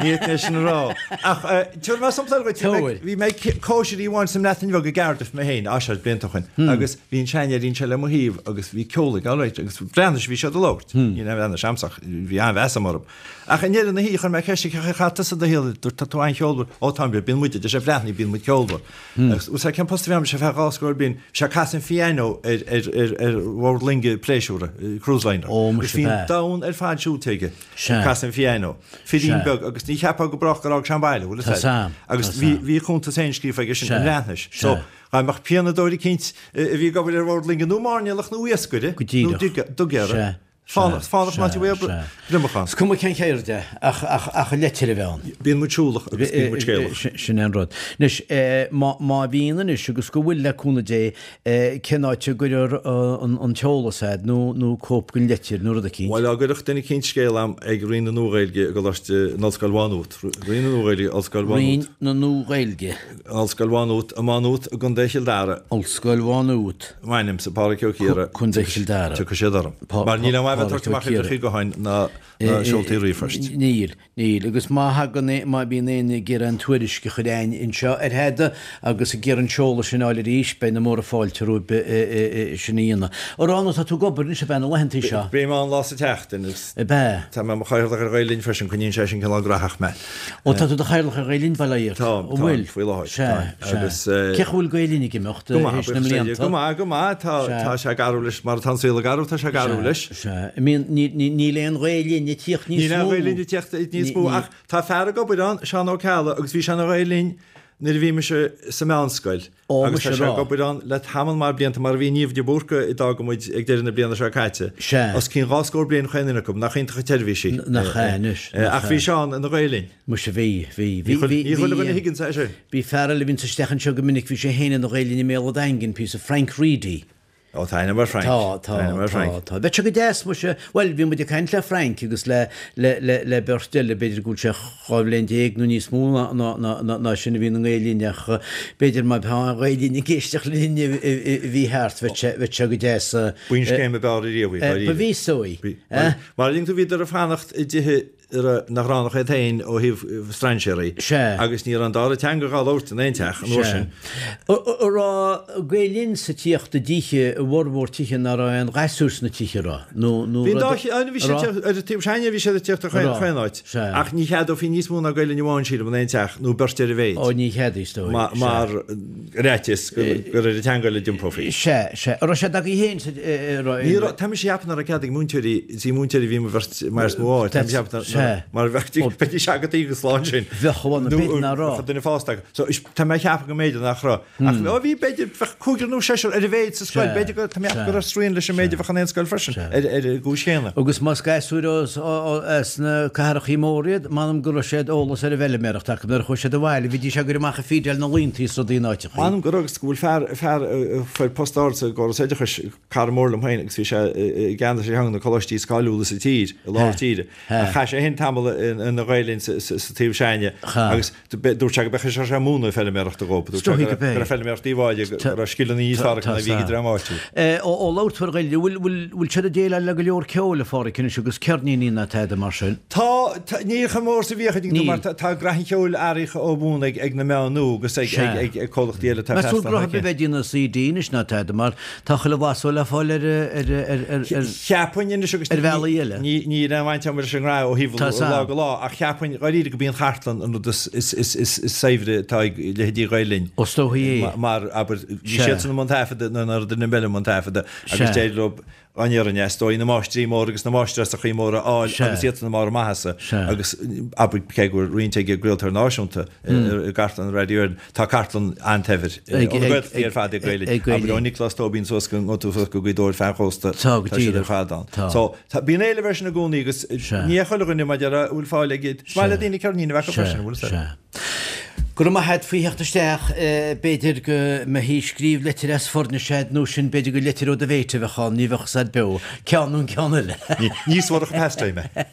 Ní fhéadfainn é sin a rá. Ach tabharfaidh mé sampla eile dhuit. Bhí mé ag cóisir amháin sa mBreatain Bheag i gCardiff mé féin, á seo blianta ó shin, agus Bhí an seanfheairín seo le mo thaobh agus bhí ceol aige alright agus Breatnais a bhí siad a labhairt. Ní raibh Breatnais a'msa ach bhí an-mheas a'm orthu. Ach i ndeireadh na hoíche chuir mé ceist air cén chaoi ar chaith tusa do shaol, dúirt tá tú an-cheolmhar, ó táim, bíonn muid, a deir sé Breathnaigh, bíonn muid ceolmhar. Agus bhfuil 's a'd cén post a bhí a'm, sé feadh dhá scór bliain, bhí sé ag casadh an phiano ar ar ar ar bhord loinge pléisiúra, cruise liner. Ó muise Agus bhí an domhan ar fad siúlta aige ag casadh an phiano. Firín beag agus ní cheapfá go brách gur fhág sé an baile, bhfuil 'fhios a'd. Agus bhí bhí a chuntas féin scríofa aige sin i mBreatnais. So Dá mbeadh pianadóir eicínt a bhí ag obair ar bhord loinge nó mairnéalach nó iascaire Go díreach. nó dugaire, Sea. fánach, Sea. fánach ná Sea. bhfuil Sea. gliomach ann. Is cuma cén cheird é, ach, ach, ach an leitir a bheith ann. Bíonn muid siúlach agus bíonn muid scéalach. Sin é an rud. Anois, má, má bhíonn anois agus go bhfuil le cúnamh Dé, cén áit a gcuirfear an, an t-eolas a'd nó, nó cóip den leitir nó rud eicínt? Bhuel, dá gcuirfeadh duine eicínt scéal a'm ag Roinn na Nua-Ghaeilge i gColáiste, in Ollscoil Mhá Nuat, Roinn na Nua-Ghaeilge, Ollscoil Mhá Nuat. Roinn na Nua-Ghaeilge. Ollscoil Mhá Nuat, i Má Nuat i gContae Chill Dara. Ollscoil Mhá Nuat. M'ainmse, Pádraic Ó Ciardha. Contae Chill Dara. Tiocfaidh siad orm. Mar níl aon mhaith bheith ag tabhairt amach uimhreacha gutháin ná seoltaí ríomhphoist. Níl, níl. Agus má thagann, má bhíonn éinne ag iarraidh an tuairisc a chur a'inn anseo ar thada agus ag iarraidh an seoladh sin a fháil arís, beidh na móra fáilte romhaibh sin a dhéanamh. A Rána, tá tú ag obair anois ab ea na laethantaí seo? Bím ann lá sa tseachtain agus Ab ea? tá mé i mo chathaoirleach ar Ghael Linn freisin, coinníonn sé sin cineál graitheach mé. Ó, tá tú i do chathaoirleach ar Ghael Linn, bail ó Dhia ort. Táim, An bhfuil? táim, faoi láthair. Sea, Táim. sea. Agus. Cén chaoi a bhfuil Gael Linn ag imeacht Go maith, théis na buíochas le Dia. mblianta? Go maith, go maith. Tá, Sea. tá sé ag athrú leis, mar atá an saol ag athrú, tá sé ag athrú Sea, leis. sea. I mean, ní, ní, níl aon Ghael Linn ag tíocht níos Níl aon mó. Ghael Linn ag tíocht níos Ní, mó, ní. ach tá fear ag obair ann, Seán Ó Ceallaigh, agus bhí sé ina Ghael Linn nuair a bhí mise sa mheánscoil. Ó, Agus muise tá sé rá. ag obair ann le tamall maith blianta, mar a bhí Niamh de Búrca a d'fhág muid ag deireadh na bliana seo caite. Sea. Os cionn dhá scór bliain chaon duine acu, nach iontach an tseirbhís í. Nach ea anois, nach Ach bhí ea. Seán ina Ghael Linn. Muise bhí, bhí. Ní Bhí, chuile bhí, ní chuile bhí, dhuine a thuigeann é sin. bhí fear eile a bhíonns isteach anseo go minic, bhí sé féin ina Ghael Linn i mBéal an Daingin, píosa, Frank Reidy. Ó, tá aithne agam ar Frank. Tá, tá, tá, tá. Bheadh sé go deas, muise, bhuel, bhí muid ag caint le Frank agus le, le, le, le beirt eile, b'fhéidir go bhfuil sé 12 bhliain nó níos mó ná, ná, ná, ná, ná sin a bhí na Gael Linn ach b'fhéidir má tá Gael Linn ag éisteacht linn a bhí thart, bheadh sé, bheadh sé go deas. B'í an scéim ab fhearr ariamh í, dáiríre. Ba bhí so í. Mar a dtuigeann tú bhíodar ag fanacht i dtithe nach raibh ann ach iad féin ó thaobh strainséaraí agus ní raibh an dara teanga dhá labhairt in aon teach an uair sin. An raibh Gael Linn sa tíocht i dtithe, i bhformhór tithe nach raibh aon ghasúr sna tithe, an raibh? Nó, nó Bhí an dá, bhí siad ar an taobh s'againne bhí siad ag tíocht ó chaon áit ach ní cheadófaí níos mó ná Gael Linn amháin sílim in aon teach nó beirt ar a mhéid. Ó ní cheadaí is dóigh. Mar fhaitíos gur ar an teanga eile a d'iompófaí. Sea, sea. An raibh sé agaibh féin sa, raibh. Ní raibh, tá mise ag ceapadh nach raibh cead ag múinteoirí, is í múinteoirí a bhí mo bheirt mar is mó áit, tá mise ag ceapadh nach, mar bheadh, bheidís agat go slán sin. Bheadh, bhuel, b'fhéidir nach raibh. Bheadh duine fásta acu. So, is, tá mé ag ceapadh go mb'fhéidir nach raibh. Ach, ó bhí, b'fhéidir, bheadh cúigear nó seisear ar a mhéid sa scoil, b'fhéidir go, tá mé ag ceapadh go raibh srian leis an méid a bheadh in aon scoil freisin, ar, ar an gcúis chéanna. Agus más gasúir as, as na cathrachaí móra iad, m'anam go raibh siad eolas ar an bhfeilméaracht acu nuair a chuaigh siad abhaile, bhídís ag cur amach ag feedáil na laontaí is rudaí in áiteachaí. M'anam go raibh agus go bhfuil fear, fear a fuair post ard sa gcóras oideachais, cara mór liom féin agus bhí sé i gceannas ar cheann de na coláistí is cáiliúla sa tír, i lár tíre. Ach chaith sé féin tamall ina Ghael Linn sa taobh s'againne agus dúirt sé go b'é a bhí sé ag múineadh feilméarachta dhóibh. Dúirt sé go raibh feilméaracht Uíbh Fhailí, go raibh scileanna níos fearr acu ná a bhí ag an dream áitiúil. Ó labhair tú ar Ghael Linn, bhfuil siad ag déileáil le go leor ceoil, a Pháraic, anois agus ceirníní ná tada mar sin? Tá, ní chomh mór is a bhíodh, tuigeann tú, mar tá graithe an cheoil athraithe ó bhun ag na meáin nua agus ag comhlachtaí eile atá ag Meas tú gur bheith ag déanamh CD anois ná tada mar tá chuile mhaith le fáil ar ar ar Cheapfainn anois agus ar bhealaí eile. Níl aon bhaint agam leis an ngraithe ó thaobh lá go lá ach cheapfainn dháiríre go b'í an chartlann an rud is saibhre atá ag leithéidí Ghael Linn. Is dóichí é. Mar, abair, bhí siadsan i mbun taifeadta nuair nach raibh duine eile i mbun taifeadta agus d'éirigh leo an fhírinne, is dóigh, na máistrí móra agus na máistreásachaí móra a fháil agus iadsan i mbarr a maitheasa agus, abair, cé go bhfuil roinnt ag an gcraoltóir náisiúnta i gcartlann Radio Éireann, tá cartlann an-tsaibhir ó na Gaeltachtaí ar fad ag Gael Linn, abair, ó Nioclás Tóibín suas go suas go Gaoth Dobhair feadh an chósta, tá siad ar fad ann. So, bíonn éileamh air sin i gcónaí agus ní hé chuile dhuine, mar a déarfá, a bhfuil fáil aige. Is maith le daoine ceirnín a bheith acu freisin, an bhfuil a fhios agat. Go raibh maith a't faoi theacht isteach. B'fhéidir go mbeifí ag scríobh leitir as Foirnis a'd nó sin b'fhéidir gur leitir ó do mhéit a bheadh ann, ní bheadh 'fhios a'd beo, ceann nó an ceann eile. Ní suarach an pastime é.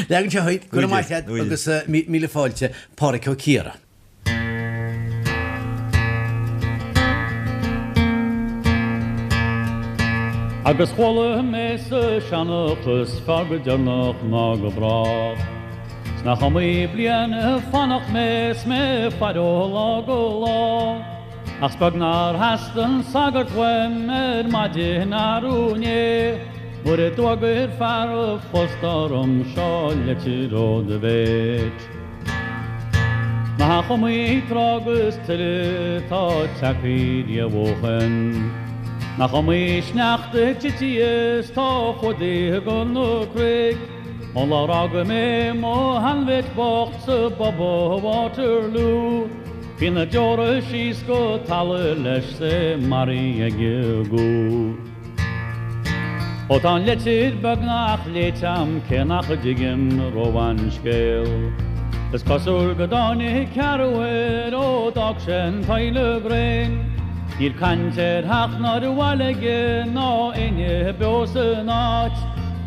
Leagann sé chuig, go raibh maith a't agus míle fáilte, Pádhraic Ó Ciardha. Agus chuala mé sa seanchas fearr go deireanach ná go brách. 'S nach iomaí bliain ag fanacht mé 's mé ag faire ó lá go lá. Ach 's beag nár theastaigh an sagart uaim ar maidin arú inné nuair a d'fhógair fear an phosta orm seo leitir ó do mhéit. Nach iomaí trá agus tuile atá tagtha riamh ó shoin. Nach iomaí sneachta tite is tá fuadaithe go na cnoic. Ón lá ar fhága mé mo sheanmhéit bocht sa bpub i Waterloo, bhí na deora síos go talamh leis 's é maraithe ag an gcú. Ó tá an leitir beagnach léite a'm cé nach dtuigim rómhaith an scéal. Is cosúil go dtáinig ceathrú air ó d'fhág sé an tSile Ghréin. Níl caint ar theach ná ar bhaile aige ná éinne beo san áit.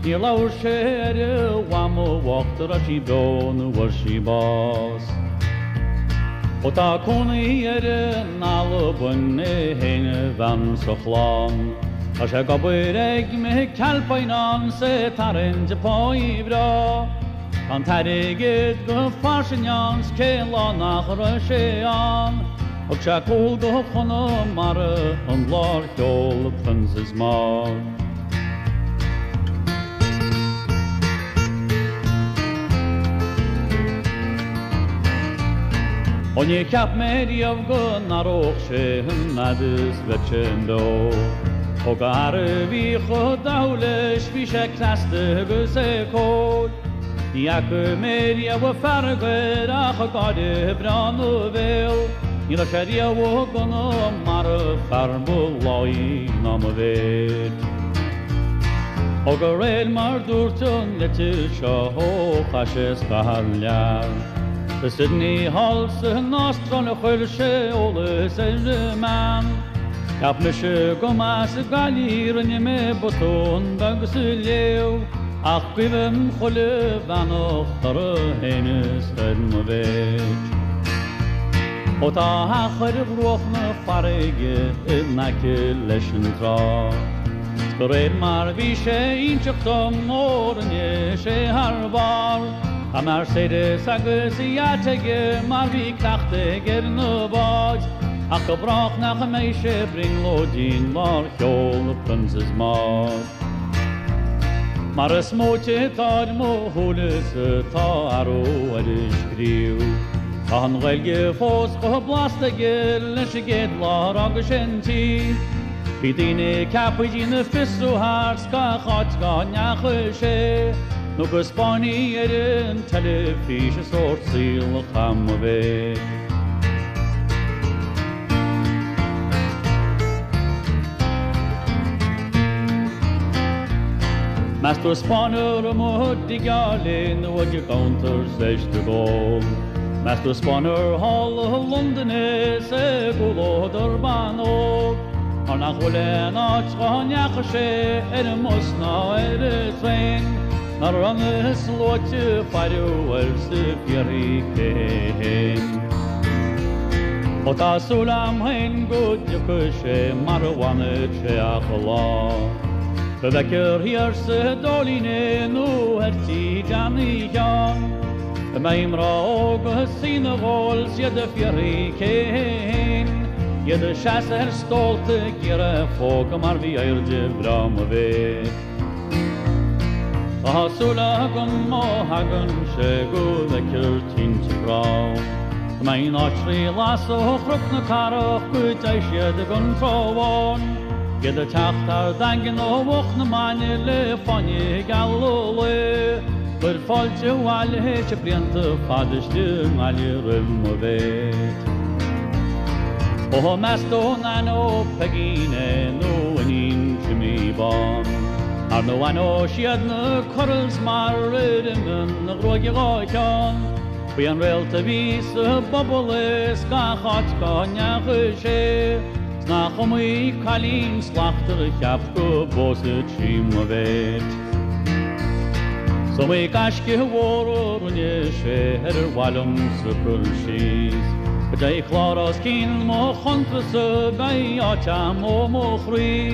Níor labhair sé ar a mhamó bhocht an raibh sí beo nó bhfuair sí bás. Ó tá cónaí air in Albain é féin a bhean 's a chlann. Tá sé ag obair ag McAlpine ann 's é ag tarraingt páí bhreá. Tá an t-airgead go fairsing ann 's cén lá nach raibh sé ann. Thug sé cúl go Conamara an lá ar sheol Princess Maud. Ó níor cheap mé riamh go n-athródh sé an fhad is bheadh sé beo. Ó go fhear a bhí chomh dathúil leis bhí sé cneasta agus é cóir. Ní fhaca mé riamh fearg air ach gáire breá 'na bhéal. Ní raibh sé riamh i gConamara fear ba láí ná mo mhéit. Ó de réir mar dúirt an litir seo ó chaith sé scaitheamh thar lear. Go Sydney thall san Astráil a chuir sé eolas ar an mbean. Cheap mise go mba as Gaillimh í, rinne mé botún beag sa léamh, ach guibhim chuile bheannacht orthu fhéin is ar mo mhéit. Ó tá a theach ar bhruach na farraige in aice leis an trá. 'S de réir mar bhí sé inseacht dom ó rinne sé thar barr, Tá Mercedes agus yacht aige mar bhí cleachtadh aige ar na báid, Ach go brách nach mbeidh sé brionglóidín nár sheol na Princess Maud. Mar is móite atá ar mo shúile is atá athrú ar a scríobh. Tá an Ghaeilge fós chomh blasta aige leis an gcéad lá ar fhága sé an tír. Bhí daoine ceaptha ag déanamh fiosrú thart 's gach áit dá ndeachaigh sé, nó go 'spáinfí ar an teilifís an sórt saoil a chaith mo mhéit. Meas tú ar 'spáineadh amuigh i dtigh Áille nó ag an gcuntar 's éist ag ól? Meas tú ar 'spáineadh thall i Londain é 's i gcomhluadar ban óg? Mar nach bhfuil aon áit dhá ndeachaigh sé ar an mbus ná ar an traein Nár fhan na sluaite faire air 's ag fiafraí cé hé fhéin. Ó tá súil a'm féin go dtiocfaidh sé mar a bhfanfaidh sé achan lá. Go bhfeicfear thiar sa Dóilín é nó ar tí Johnny Sheáin. Go mbeidh mná óga ag suí 'na gcomhair 's iad ag fiafraí cé hé fhéin, iad ag seasamh ar stólta ag iarraidh a phógadh mar bhí airde bhreá mo mhéit. Tá súil agam má thagann sé go bhfeicfear tinte grá. Go mbeidh an áit trí lasadh ó Chnoc na Cathrach go dteigh siad ag an Trá Bháin, iad ag teacht thar Daingean ó Mhuc na Maine le fáinní geala lae. Cuir fáilte abhaile théis blianta fada istigh i nGaillimh roimh mo mhéit. Ó meas tú an aithneoidh Peigín é nó iníon Jimí Bán? Ar nó aithneoidh siad na curls mar ar imigh a ghruaig dhá cheann? B'í an réalt a bhí sa bpobal é 's gach áit cá ndeachaigh sé 's nach iomaí cailín slachtmhar a cheap go bpósfadh sí mo mhéit. 'S iomaí gaisce mhór a rinne sé ar ar mhaith liomsa cur síos. Go dté clár os cionn mo chuntas-sa beidh áit a'm ó mo chroí.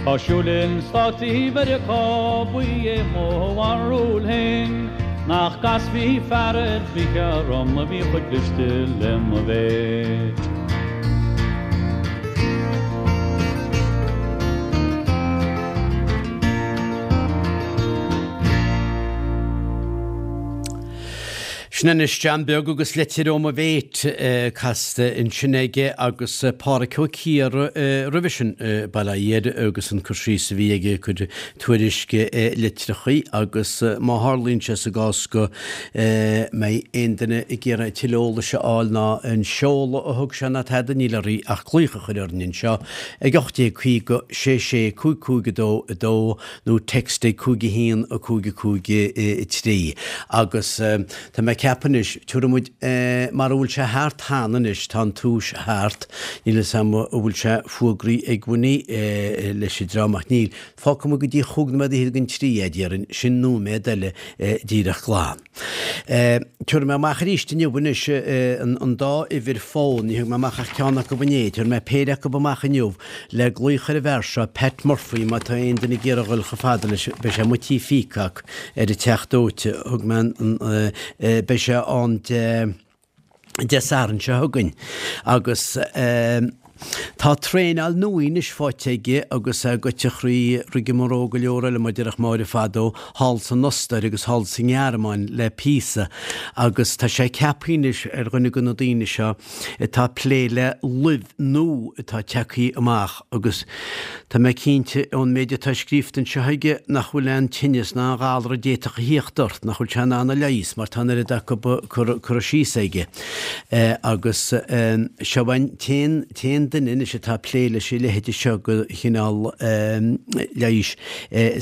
Tá siúl in Státaí Mheiriceá ba é mo bharúil féin nach gcasfaí fear ar bith orm a bhí chomh cliste le mo mhéit. Sin anois John Beag agus Leitir ó mo Mhéit casta ansin aige agus Pádhraic Ó Ciardha roimhe sin, bail ó Dhia air agus an cur síos a bhí aige ag cur tuairisc litreachaí agus má tharlaíonn sé sa gcás go mbeidh aon duine ag iarraidh tuilleadh eolais a fháil ná an seoladh a thug sé ná tada níl oraibh ach glaoch a chur orainn anseo ag 1850 66 55 2 2 nó text ag 5 1 5 5 3 agus tá mé ag ceapadh anois, tabharfaidh muid, mara bhfuil sé thart cheana anois, tá an túis thart, níl fhios a'm an bhfuil sé fuagraithe ag Winnie leis an dream ach níl, fágfaidh muid go dtí chúig nóiméad fhichead don trí é, déarfainn, sin nóiméad eile díreach glan. Tabharfaidh mé amach arís inniu anois an dá uimhir fón, ní thug mé amach ach ceann acu inné, tabharfaidh mé péire acu amach inniu le glaoch ar an bhfear seo, Pat Murphy, má tá aon duine ag iarraidh a dhul chomh fada leis, beidh sé amuigh Tí Pheacock ar an Teach Dóite, thug mé an, beidh sé ann Dé. Dé Sathairn seo chugainn agus tá traenáil nua anois faighte aige agus é goite thrí rigmarole go leor eile mar a déarfadh Máire fadó, thall san Ostair agus thall sa nGearmáin le píosa agus tá sé ceaptha anois ar dhuine de na daoine seo atá ag plé le luibh nua atá tagtha amach agus tá mé cinnte ón méid atá scríofa anseo aige nach bhfuil aon tinneas ná aon ghalar a d'fhéadfadh a thíocht ort nach bhfuil sé in ann a leigheas mar tá an oiread acu curtha síos aige. Agus seo an t-aon. duine anois atá ag plé leis a leithéide seo de chineál leighis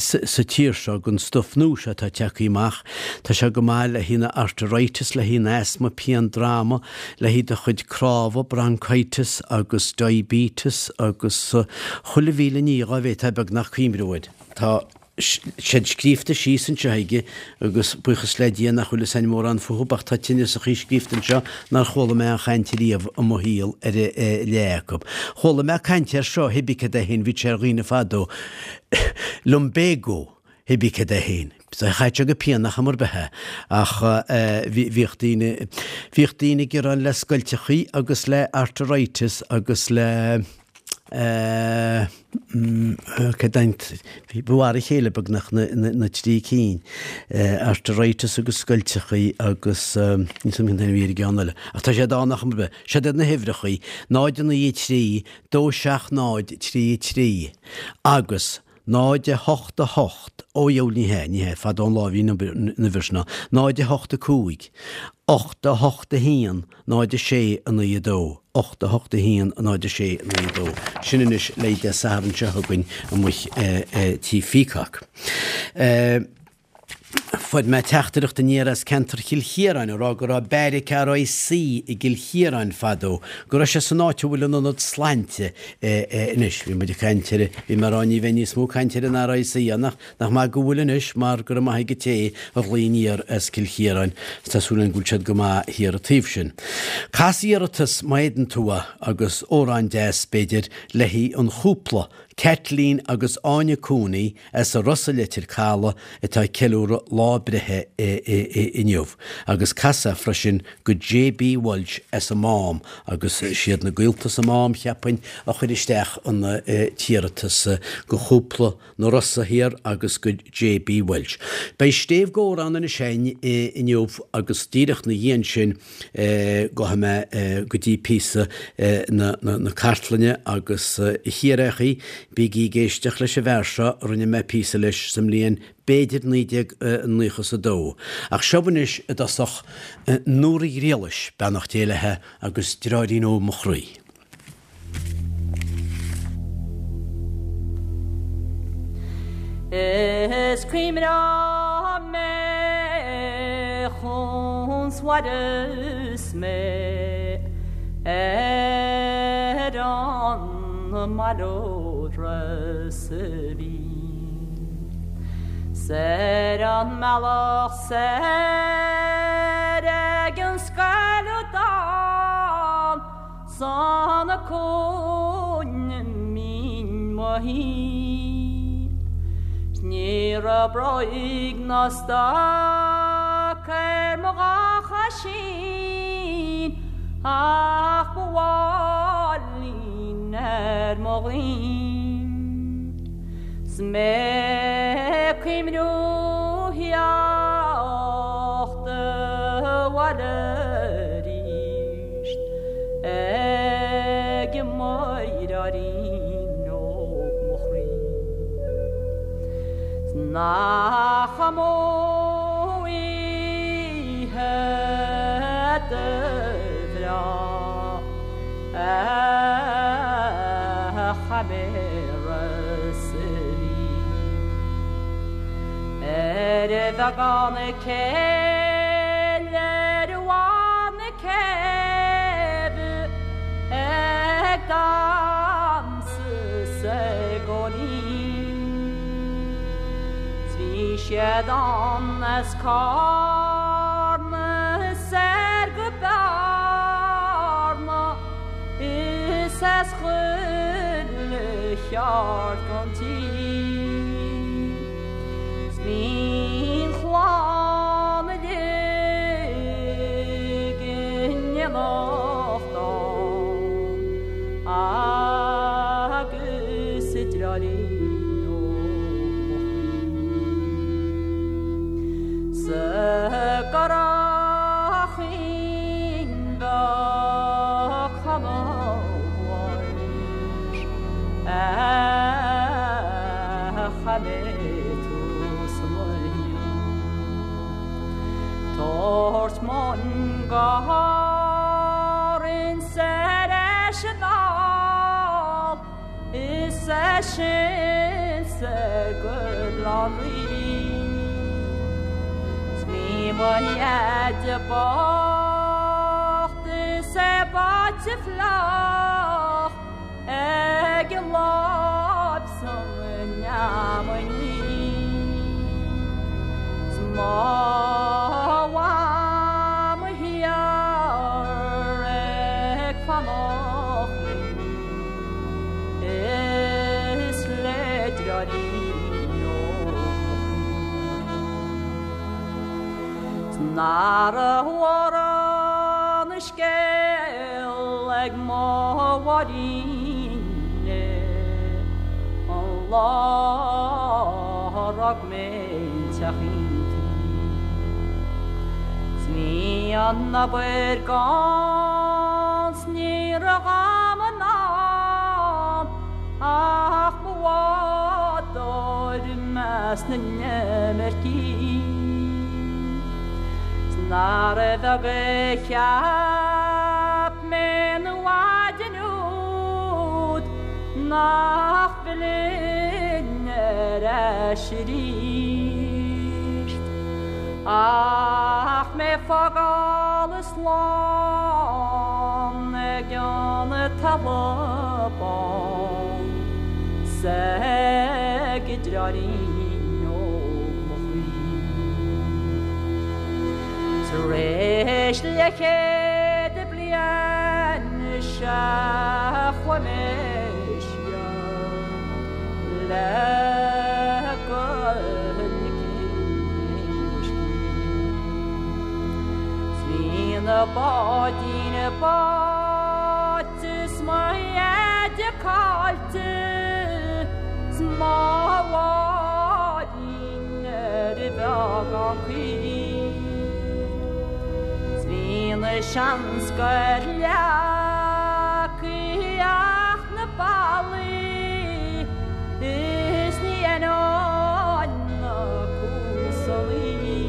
sa tír seo, den stuif nua seo atá tagtha amach. Tá sé go maith le haghaidh na arteritis, le haghaidh an asthma, pian droma, le haghaidh do chuid cnámha, bronchitis agus diabetes agus chuile mhíle ní dhá bhféadfá beagnach cuimhniú air. Tá siad scríobhta síos anseo aige agus buíochas le Dia nach bhfuil fhios a'inn mórán fúthu ach tá tinneasachaí scríobhta anseo nár chuala mé aon chaint riamh i mo shaol ar a leath acu. Chuala mé caint air seo, hibí cad é féin, bhí sé ar dhaoine fadó. Lumbago, hibí cad é féin. Chaith sé go pianach am ar bith é ach bhíodh daoine, bhíodh daoine ag gearán le scoilteachaí agus le arteritis agus le cad é an, ba mhar a chéile beagnach na trí cinn, arteritis agus scoilteachaí agus níl 'fhios a'm cén t-ainm a bhí ar an gceann eile. Ach tá siad ann ach am ar bith. Siod iad na huimhreachaí, 0 9 3 2 7 0 3 3 agus 0 8 8, ó dheabhail ní hea, ní hea, fada ón lá a bhí an uimhir sin ann, 0 8 5, 8 8 1, 0 6 9 2, 8 8 1, 0 6 9 2. Sin anois le Dé Sathairn seo chugainn amuigh Tí Pheacock. Fuair mé teachtaireacht aniar as ceantar Chill Chiaráin ag rá go raibh beairic RIC i gCill Chiaráin fadó, go raibh sé san áit a bhfuil an Ionad Slainte anois. Bhí muid ag caint ar, bhí mé ag rá ní bheidh níos mó caint ar an RIC ann ach nach maith go bhfuil anois mar go raibh maith ag an té a ghlaoigh aniar as Cill Chiaráin is tá súil againn go bhfuil siad go maith thiar an taobh sin. Cas iarratas má fhéadann tú é agus amhrán deas b'fhéidir le haghaidh an chúpla, Caitlín agus Áine Cooney, as an Ros i Leitir Caladh atá ag ceiliúradh lá breithe inniu agus cas é freisin go JB Walsh as an Mám agus siad na gaolta sa Mám, cheapfainn, a chuir isteach an t-iarratas go chúpla na Rosa thiar agus go JB Walsh. Beidh Stéibh Gór ann anois againn inniu agus díreach 'na dhiaidh ansin Gabhfaidh mé go dtí píosa na cartlainne agus a Chiarraíochaí, bígí ag éisteacht leis an bhfear seo, rinne mé píosa leis sa mbliain b'fhéidir 1992. Ach seo anois i dtosach Nóra Ghriallais, beannacht Dé léithe, agus Deartháirín Óg Mo Chroí. Is cuimhneoidh mé chun s'mhair is mé ar an mbaile ó Ros a' Mhíl 's ar an mbealach soir ag an scaladán San cúinne mín mo thí. 'S ní raibh bróig ná stoc ar mo dhá choisín ach mo mháilín ar mo ghlúin. 'S mé ag cuimhniú theacht abhaile arís. Ag an mdeartháirín óg mo chroí. 'S nach amú oíche do bhreá a chaith mé Ros a' Mhíl. Ar bheagán céille ar bhun céibhe ag damhsa 's ag góilín. 'S bhí siad ann as Cárna soir go Bearna is as chuile cheard gon tír. 'S bhí an chlann uilig in éineacht ann agus a deartháirín óg mo chroí sa gCurraichín Beag Conall Walsh a chaith mé tús mo Tabhairt mun go hÁrainn soir leis an sin 's ar go Bleá Cliath. 'S bhí mo dheaide bocht is é báite fliuch ag an láib san fheamainn 's mo mham thiar ag fanacht linn is le deartháirín óg mo chroí. 'S nach raibh mórán a scéal ag mo Mháirín an lá a rug mé an teachín tuí. 'S bhí an obair gann 's ní raibh a'm in am ach mo bhádóir i measc na n-imircigh. 'S nárbh bheag a cheap mé an mhaidin úd nach bhfillfinn ar ais arís. Ach mé fágáil slán ag an talamh bán 's ag deartháirín óg mo chroí. Tar éis leathchéad bliain is ea chuaigh mé siar le go ligfinn mo scíth. 'S bhí na báidín báite 's mo dheaide caillte 's mo Mháirín ar a bheagán caoi. 'S bhí na seanscoil leagtha ach na ballaí is ní aithneoinn na cuasannaí.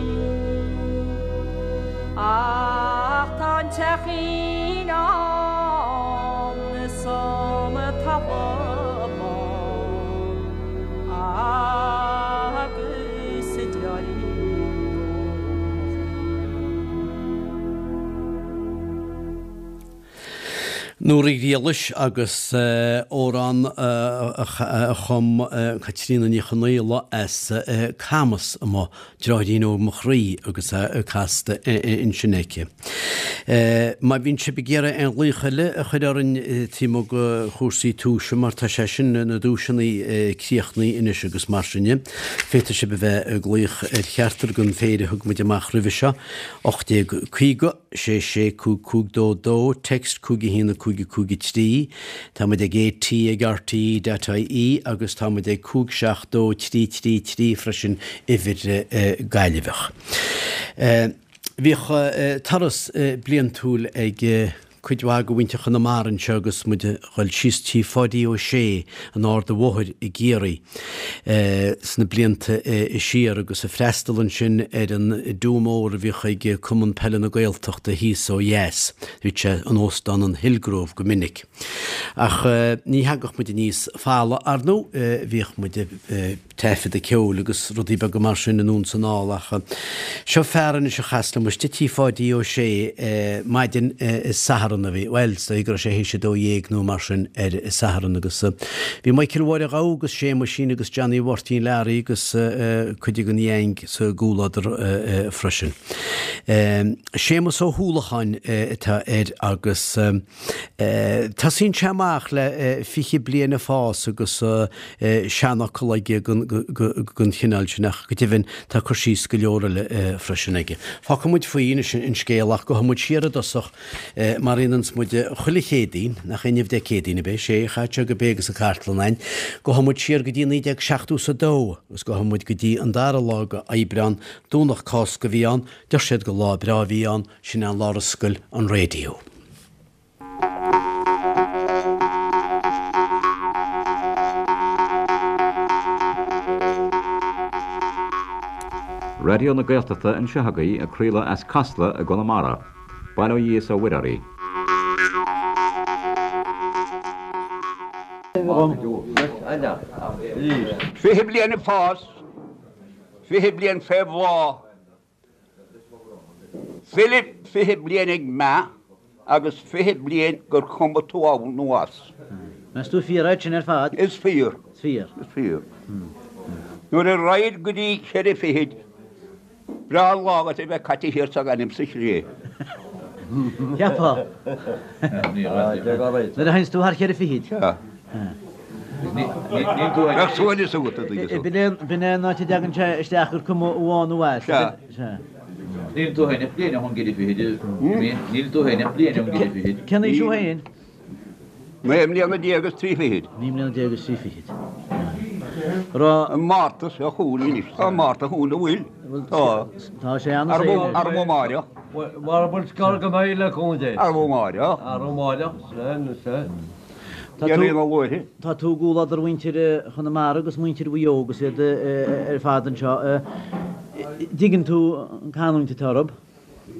Ach tá an teachín ann is an talamh bán agus a deartháirín óg mo chroí. Nóra Ní Ghriallais agus amhrán a chum Caitríona Ní Chonaola as Camas amuigh, Deartháirín Óg Mo Chroí agus é casta ansin aici. Má bhíonn sibh ag iarraidh aon ghlaoch eile a chur orainn taobh amuigh de chúrsaí tomhais mar tá sé sin, na duaiseanna críochnaithe anois agus mar sin de, féadfaidh sibh a bheith ag glaoch ar cheachtar den phéire a thug muid amach roimhe seo, 1850. 6 6 5 5 2 2, Text 5 1 5 5 3, Tá muid ag AT ag RTE dot IE agus tá muid ag 5 7 2 3 3 3 freisin, uimhir Gaillimheach. Bhíodh turas bliantúil ag cuid mhaith de mhuintir Chonamara anseo agus muid a dhul síos tí Pháidí Ó Sé in Ard a' Bhóthair i gCiarraí sna blianta siar agus ag freastal ansin ar an do mór a bhíodh ag Cumann Peile na Gaeltachta thíos ó dheas. Bhíodh sé in Óstán an Hillgrove go minic. Ach ní thagadh muid aníos folamh, ar ndóigh, bhíodh muid ag taifeadadh ceoil agus rudaí beaga mar sin anonn 's anall ach seo fear anois a chas liom istigh tí Pháidí Ó Sé maidin Satharn a bhí, bhuel, is dóigh go raibh sé théis a 12 nó mar sin ar Satharn agus bhí Michael Mháire Ghabha agus Séamuisín agus Johnny Mháirtín Learaí agus cuid den gheaing sa gcomhluadar freisin. Séamus Ó hUallacháin atá air agus. Tosaíonn sé amach le 20 bliain ag fás agus seanfhocal aige den chineál sin ach go deimhin tá cur síos go leor eile freisin aige. Fágfaidh muid faoi anois an scéal ach gabhfaidh muid siar i dtosach mar a dhéananns muid chuile Chéadaoin, nach inniu Dé Céadaoin ab é? Sé, chaithfeadh sé go b'é agus an chartlann a'inn. Gabhfaidh muid siar go dtí 1972 agus gabhfaidh muid go dtí an dara lá de Aibreán, Domhnach Cásca a bhí ann, deir siad gur lá breá a bhí ann, Sin é an lá ar oscail an raidió. Raidió na Gaeltachta anseo agaibh ag craoladh as Casla i gConamara. Bail ó Dhia is ó Mhuire oraibh. 20 bliain ag fás, 20 bliain fé bhláth, 20 bliain ag meath agus 20 bliain gur cuma tú ann nó as. Meas tú fíor é sin ar fad? Is fíor. Is fíor. Is fíor. Nuair a raghaid go dtí cheithre fichid, breá an lá agat a bheith caite thiar sa ghaineamh sa chré. Cheapfá. Nuair a théanns tú thar cheithre fichid. Sea. Bheadh suaimhneas agat, a dtuigeann tú. B'in é an áit a dtagann sé isteach gur cuma ann nó as. Sea. Sea. Níl tú féin ach bliain ón gceithre fichid, níl tú féin ach bliain ón gceithre fichid. Cén aois thú féin? 19 mbliana is trí fichid. 19 mbliana is trí fichid. Raibh. An Márta seo chugainn anois. Tá an Márta chugainn, an bhfuil? Tá. Tá sé an-saoil. Arú amáireach. Mara bhfuil scor go mbeidh le cúnamh Dé. Arú amáireach. Arú amáireach, sea, sea. Tá tú, tá tú i gcomhluadar mhuintir Chonamara agus muintir Mhaigh Eo agus iad ar fad anseo. Dtuigeann tú an canúint atá orthu?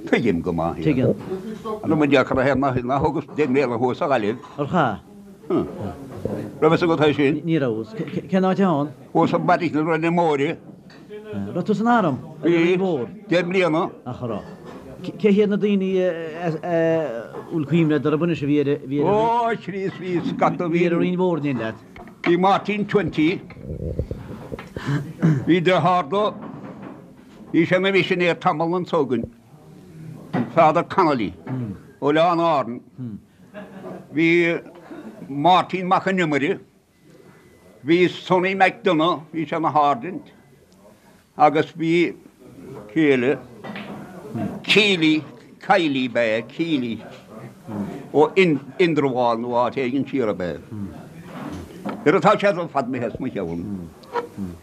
Tuigim go maith iad. Tuigeann. An bhfuil dearcadh ar na nach thugas deich mbliana thuas sa Ghaillimh? Ar chaith? Raibh fhios agat é sin? Ní raibh. Cén áit ann? Thuas i mBeairic na Rinne Móire. Raibh tú san arm? Bhí. Deich mbliana. Ach a raibh. Cé hiad na daoine a bhfuil cuimhne agat orthu anois a bhí ar a bhí ar Ó, a Chríost, bhí scata, bhí ar an Rinn Mhór in éindí leat? Bhí Martin Twenty. Bhí deartháir dó. Bhí sé ina mhisinéir tamall anso againn, an Father Connolly, ó Oileáin Árann. Bhí Máirtín Mac an Iomaire, bhí Sonny McDonagh, bhí sé ina sháirsint, agus bhí cé eile, Keely, Kiley ab ea, Keely, ó Indreabhán nó áit éigin siar ab ea. Nuair atá sé ar fad imithe as mo cheann.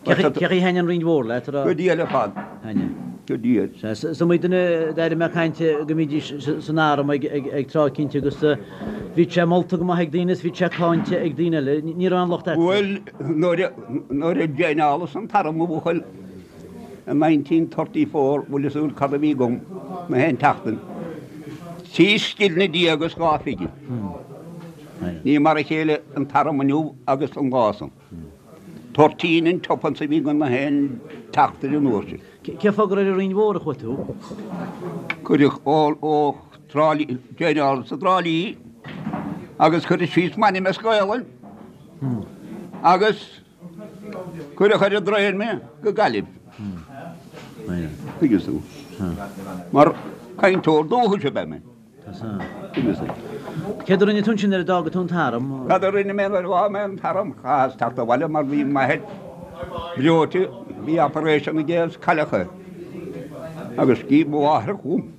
Cé chaoi a thaitnigh an Rinn Mhór leat? Go diail ar fad. Thaitnigh. Go diail. Sea, is iomaí duine a d'airigh mé ag caint go mbídís san arm ag tráth eicínt agus bhíodh sé molta go maith ag daoine is bhíodh sé cáinte ag daoine eile. Ní raibh aon locht agat. Bhuel, nuair a joineálas an t-arm a bhuachaill i 1934, bhfuil fhios agat cad a bhí agam na haon tseachtain? Trí scilne déag is dhá phingin. Ní mar a chéile an t-arm inniu agus an lá san. Toirtín and tuppence a bhí againn na haon tseachtain an uair sin. Cén fáth gur ar an Rinn Mhór a chuaigh tú? Cuireadh ó Trá Lí, joineálas i dTrá Lí agus cuireadh síos m'ainm as Gaolainn agus cuireadh ar an dtraein mé go Gaillimh. Tuigeann tú? Mar cainteoir dúchais ab ea mé. Céard a rinne tú ansin nuair a d'fhága tú an t-arm? Cad a rinne mé nuair a d'fhág mé an t-arm? Chaitheas teacht abhaile mar bhí m'athair breoite, bhí operation aige agus cailleadh é. Agus scríobh mo mháthair chugam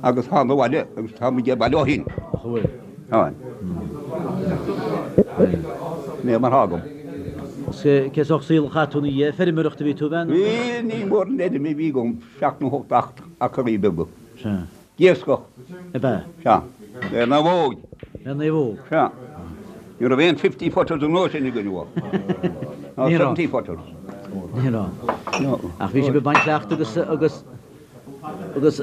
agus thána abhaile agus tá muid abhaile ó shin. Ach an bhfuil? Táim. Sin é mar thá agam. Cé sórt saol a chaith tú ina dhiaidh? Feirmeoireacht a bhí tú a bheith? Bhí, ní mór an fheirm a bhí agam, seacht nó hocht acraí beaga. Sea. D'iascach. Ab ea? Sea. Le naomhóig. Le naomhóg. Sea. Ní raibh aon fifty footers an uair sin againn uaidh. Ná seventy footers. Ní raibh. Ach bhí sibh ag baint leacht agus agus agus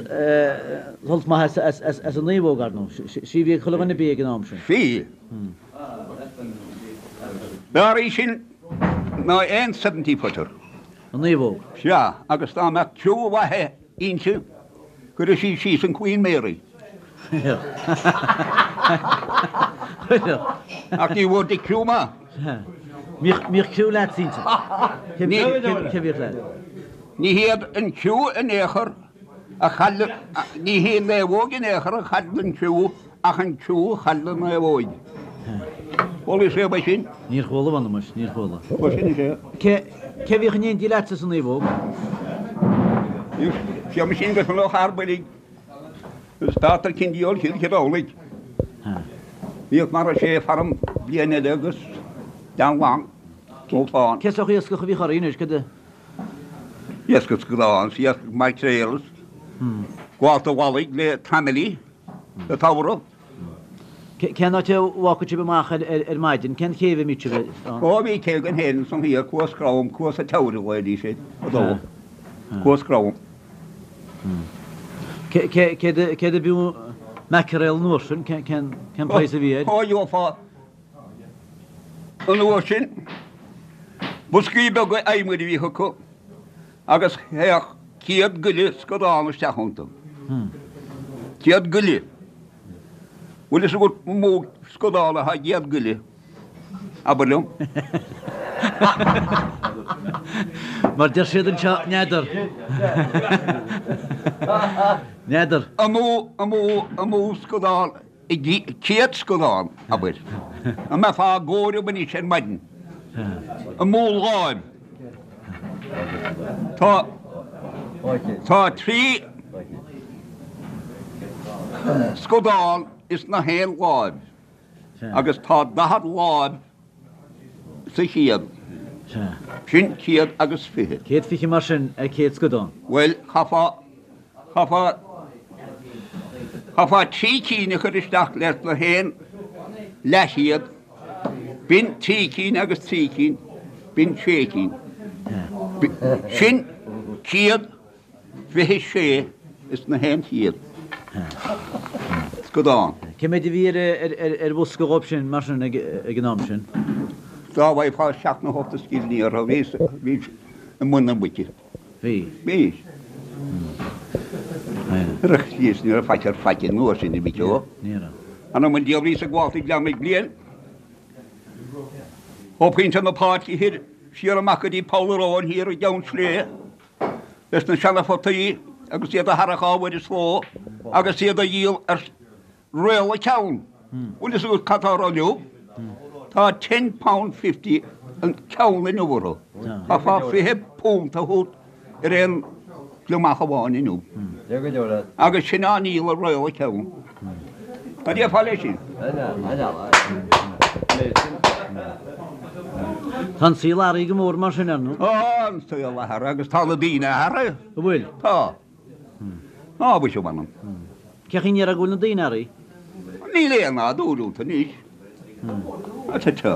sult maith as as as an naomhóg, ar ndóigh. Sí a bhí ag chuile dhuine bídh ag an am sin. Bhí. B'fhearr í sin ná aon seventy footer. An naomhóg. Sea, agus dá mbeadh criú mhaith inti, chuirfeadh sí síos an Queen Mary. Chuirfeadh. Ach ní bhfuair Dick criú maith. Bhíodh criú leat inti. Cé bhíodh leat? Ní hiad an criú in aon chor a chaill, ní hí an naomhóg in aon chor a chaill an criú Ach an criú a chaill an naomhóig. Chuala sibh é sin? Níor chuala, mh'anam, níor chuala. Bhuel, sin é. Cé, cé bhíodh in éindí leatsa sa naomhóg? Bhí sin go sona thar builg. Is Peadar Cindy ó Chill Chireolaigh. Bhíodh mar a sé farm bliain eile agus Dan Long, ó Fán. Cé sórt iascach a bhíodh oraibh anois, cad a. Iascach scadán, iascach maicréal, gabhálta mhallaigh le traimilí. Sa tsamhradh. Cén áit a bhfágfadh sibh amach ar maidin? Cén chéibh a mbíodh sibh ann? Ó bhí cé againn féin ansan thiar, Cuas Crom, Cuas a' Teamhair a ghlaoidís air fadó. Cuas Crom. Céard a b'fhiú mackerel an uair sin? Cén praghas a bhí air? Ó gheofá. An uair sin, boscaí beaga adhmaid a bhíodh acu agus théadh 100 goile scadán isteach iontu. 100 goile. Bhfuil fhios agat an mó scadán atá i gcéad goile? Abair liom. Mar deir siad anseo, n'fheadar. N'fheadar. An mó, an mó, an mó scadán i gcéad scadán, abair. An mbeifeá ag comhaireamh anois ar maidin? An mó láimh? Tá, tá 3 scadán ins na haon láimh agus tá 40 láimh sa chéad. Sin 120. 120 mar sin ar 100 scadán. Bhuel, chaithfeá, chaithfeá, chaithfeá trí cinn a chur isteach leis na haon leathchéad, b'in trí cinn agus trí cinn, b'in sé cinn. Sin 126 is na haon chéad scadán. Cé mhéid a bhí ar bhosca dhóibh sin mar sin ag an am sin? Dá bhfaighfeá seacht nó hocht de scillingí orthu, bhí i mbun na muice. Bhí. Bhí. Ní raibh faic ar faic an uair sin, a mhic ó. Ní raibh. Anam an diabhail bhíos ag gabháil ag Gleann Mhic Bliain. Ó Phointe na Páirce Thoir siar amach go dtí Poll an Róin thiar i gCeann Sléibhe leis na seana-photaí agus iad a tharrac ábhair is ló agus iad a dhíol ar réal an ceann. Bhfuil fhios agat cad tá orthu inniu? Tá ten pound fifty an ceann inniu orthu. Chaithfeá £20 a thabhairt ar aon gliomach amháin inniu. Agus sin á ndíol ar réal an ceann. Cad déarfá leis sin? Tá an saol athraithe go mór mar sin, ar ndóigh. Tá an saol athraithe agus tá na daoine athraithe. An bhfuil? Tá. Á, mhuise, mh'anam. Cén chaoi a ndéarfá go bhfuil na daoine athraithe? Níl aon nádúr iontu anois. Tá, tá.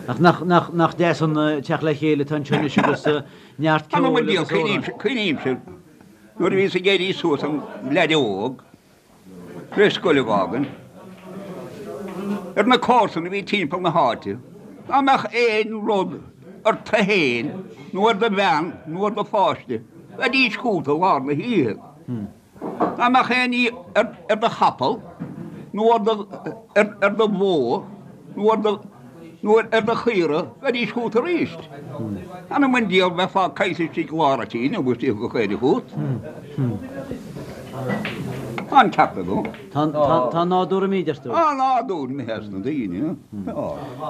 Ach nach, nach, nach deas an teacht le chéile atá anseo anois agus neart Anam ceoil an diabhal, agus amhráin. cuimhnímse nuair a bhíos ag éirí suas im leaid óg, tar éis scoil a fhágaint, ar na comharsana a bhí timpeall na háite, dá mbeadh aon rud ort féin nó ar do bhean nó ar do pháiste, bheidís chugat i lár na hoíche. Dá mbeadh aon ní ar do chapall nó ar do bhó nó ar do nó ar do chaora, bheidís chugat arís. Anam an diabhal bheifeá caillte istigh i lár an tí nó bheadh tiocfadh caoirigh chugat. Tá an ceart agam. Tá an nádúr imithe, deir tú? Tá an nádúr imithe as na daoine. Tá.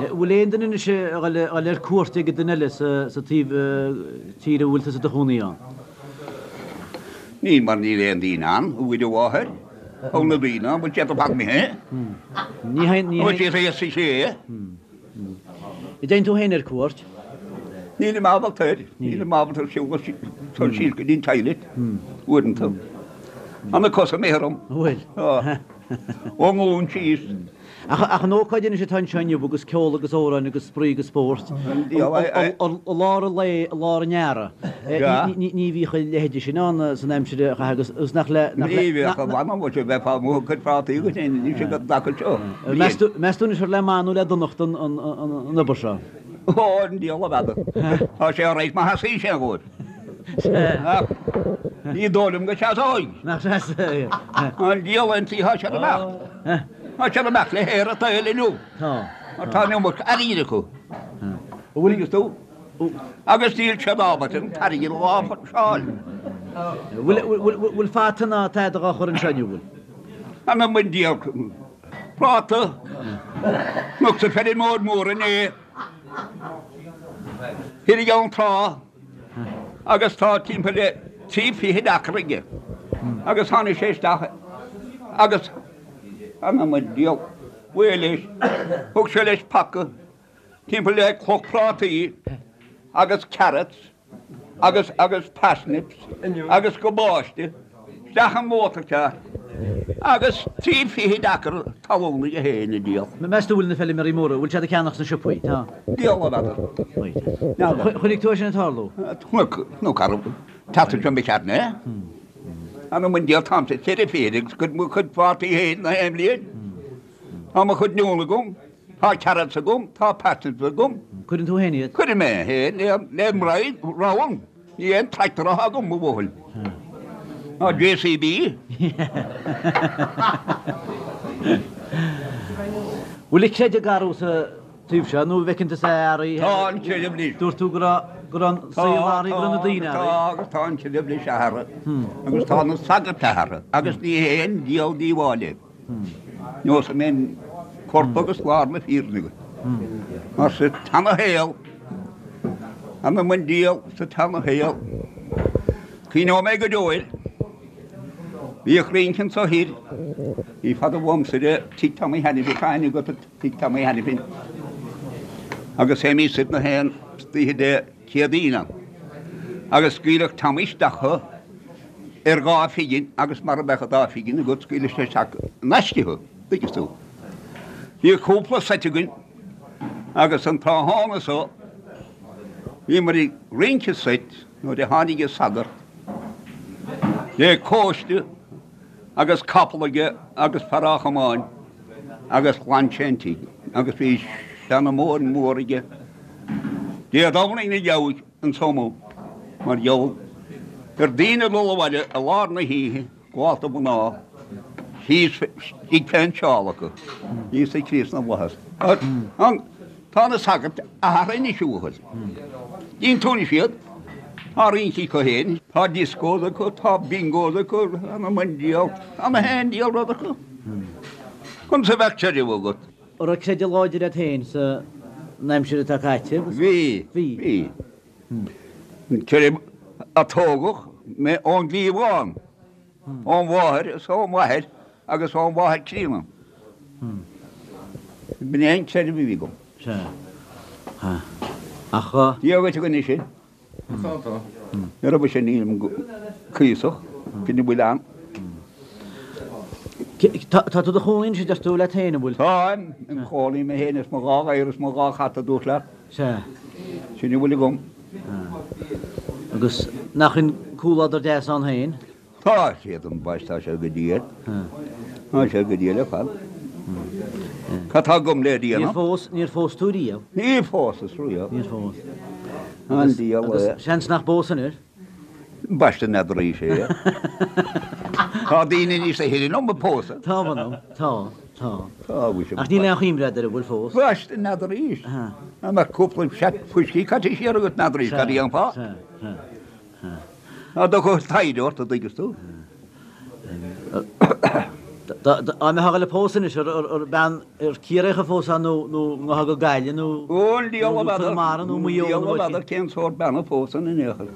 Bhfuil aon duine anois a dhul ar cuairt ag duine eile sa taobh tíre a bhfuil tusa i do chónaí ann? Níl mar níl aon daoine ann, a Mhuire Mháthair. Tá na daoine ann, bhfuil siad ar fad imithe? Ní théann, ní Bhfuil siad thíos sa chré? An dtéann tú féin ar cuairt? Nílim ábalta air. Nílim ábalta siúl síos go dtí an toilet uaireanta. Tá na cosa imithe orm. Bhfuil? Tá. Ón nglúin síos. Ach an ócáid anois atá anseo inniu agus ceol agus amhráin agus spraoi agus spórt i lár an lae, i lár an earraigh, ní bhíodh a leithéide sin ann san aimsir a caitheadh agus nach le. Ní bhíodh, a mh'anam, bhuel, bheifeá amuigh ag cur prátaí agat féin anois ag an dtaca seo. Meas tú anois ar le maith nó le donacht an obair seo? Ó, an diabhal a bheadh. Tá sé ar aghaidh má sheasaíonn sé dhóibh. Ach ní dóigh liom go seasóidh. Nach seasóidh. An diabhal an tí, tá sé ar imeacht. Tá siad ag imeacht le haer an tsaoil inniu. Tá. Mar tá an iomarca airgid acu. Bhfuil fhios tú? Agus níl siad ábalta an t-airgead a láimhseáil. Bhfuil fata ná tada dhá chur anseo inniu, bhfuil? Anam an diabhail. Práta. Chonacsa feirmeoir mór inné. Thiar i gCeann Trá. Agus tá timpeall le trí fichid acra aige. Agus tháinig sé isteach agus anam an diabhail, bhuel leis, thug sé leis paca timpeall le cloch prátaí agus carrots agus agus parsnips agus cabáiste isteach i motorcar agus trí fichid acra talún aige féin a díol. Meas tú bhfuil na feilméaraí móra, bhfuil siad ag ceannach sna siopaí? Tá. Diabhal a n'fheadar. Chonaic tú é sin ag tarlú? Chonaic, nó cá raibh, teacht anseo mé ceart mé. Anam an diabhail táimse 44 agus cuid mo chuid prátaí féin na haon bhliain. Tá mo chuid oinniún agam. Tá carrots agam, tá parsnips agam. Cuireann tú féin iad? Cuirim mé féin le m'roinn, ramhan. Ní aon tractor atá agam, mo bhuachaill. Ná JCB. Bhfuil an creideamh ag athrú sa taobh seo nó an bhfeiceann tusa athraithe? Tá an creideamh anois. Dúirt tú go raibh go raibh an saol athraithe, go raibh na daoine athraithe. Tá agus tá an creideamh anois athraithe agus tá na sagairt athraithe agus ní hé an diabhal díobháil é. Neosfaidh mé an corp agus lár na fírinne agat. Mar sa tseana-shaol, anam an diabhail sa tseana-shaol, cuimhneoidh mé go deo air. Bhíodh rince anso thoir, ní fada uaimse de Tigh Tommy Hanafin, tá aithne agat ar Tigh Tommy Hanafin, agus théimís soir na haon oíche Dé Céadaoin ann, agus scaoileadh Tommy isteach thú ar dhá phingin agus mara mbeadh an dá phingin agat scaoileadh sé isteach in aisce thú, dtuigeann tú. Bhíodh cúpla seit againn agus an tráthnóna so bhíomar ag rince seit nuair a tháinig an sagart le cóiste agus capall aige agus fear á chomáint agus ghlan sé an tigh agus bhí seanmóir mhór aige Dé Domhnaigh na gheabhaidh anso amuigh mar gheall ar daoine ag dul abhaile i lár na hoíche, gabhálta mná, thíos istigh fén tseál acu, Íosa Críost na bhFlaitheas. Tá na sagairt athraithe anois a bhuachaill. Tchíonn tú anois iad, tá rince acu féin, tá discos acu, tá bingos acu, anam an diabhail, tá na haon diabhal rud acu. Conas a bheadh creideamh agat? An raibh creideamh láidir agat féin san aimsir atá caite? Bhí, bhí. An creideamh a tógadh mé ón gcliabhán, ón mháthair is ón mháthair agus ón mháthair críonna. B'in é an creideamh a bhí agam. Sea. Ach. Dia dhuit a dhuine sin. Tá, tá. Ní raibh mise nílim cuíosach, sin a bhfuil ann. Tá tú do chónaí anois a deir tú leat féin, an bhfuil? Táim im chónaí mé féin is mo dhá ghadhar is mo dhá chat a dúirt leat. Sea. Sin a bhfuil agam. Agus nach in comhluadar deas ann féin? Tá siad ambaist, tá sé go diail. Tá sé go diail ar fad. Cad tá agam le déanamh? Níor phós, níor phós tú riamh? Níor phósas riamh. Níor phós. An diabhal é. Agus seans nach bpósfainn air. Ambaiste n'fheadar arís é. Tá daoine níos sine ná mé ag pósadh. Tá, mh'anam, tá, tá. Tá, bhí sé. Ach níl aon chuimhne agat ar an bhfuil fós. Ambaiste n'fheadar arís. Dá mbeadh cúpla seat fuiscí caite siar agat n'fheadar arís cad a dhéanfá. Sea, sea, sea. Ná dtiocfadh taighde ort, a dtuigeas tú. Dá mbeifeá ag dul a pósadh anois, ar bean ar Ciarraíoch a phósfá nó nó ngabhfá go Gaillimh nó Ón diabhal a bhfeadar, Conamara nó Maigh Eo nó n'fheadar cén sórt bean a phósfainn in aon chor.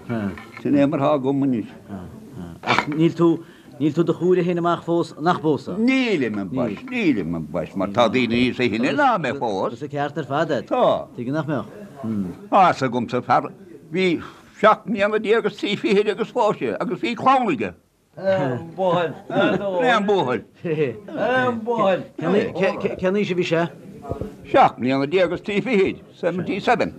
Sin é mar atá agam anois. Ach níl tú, níl tú do chomhairle féin amach fós nach bpósfá? Nílim, ambaist, nílim, ambaist, mar tá daoine níos sine ná mé fós. Agus an ceart ar fad agat. Tá. Tuige nach mbeadh? Tá fhios agamsa fear, bhí 17 mbliana agus 23 fichid agus phós sé agus bhí clann aige. Buachaill. Aon buachaill. Aon buachaill. Cén aois a bhí sé? 17 mbliana agus 23 fichid, 77.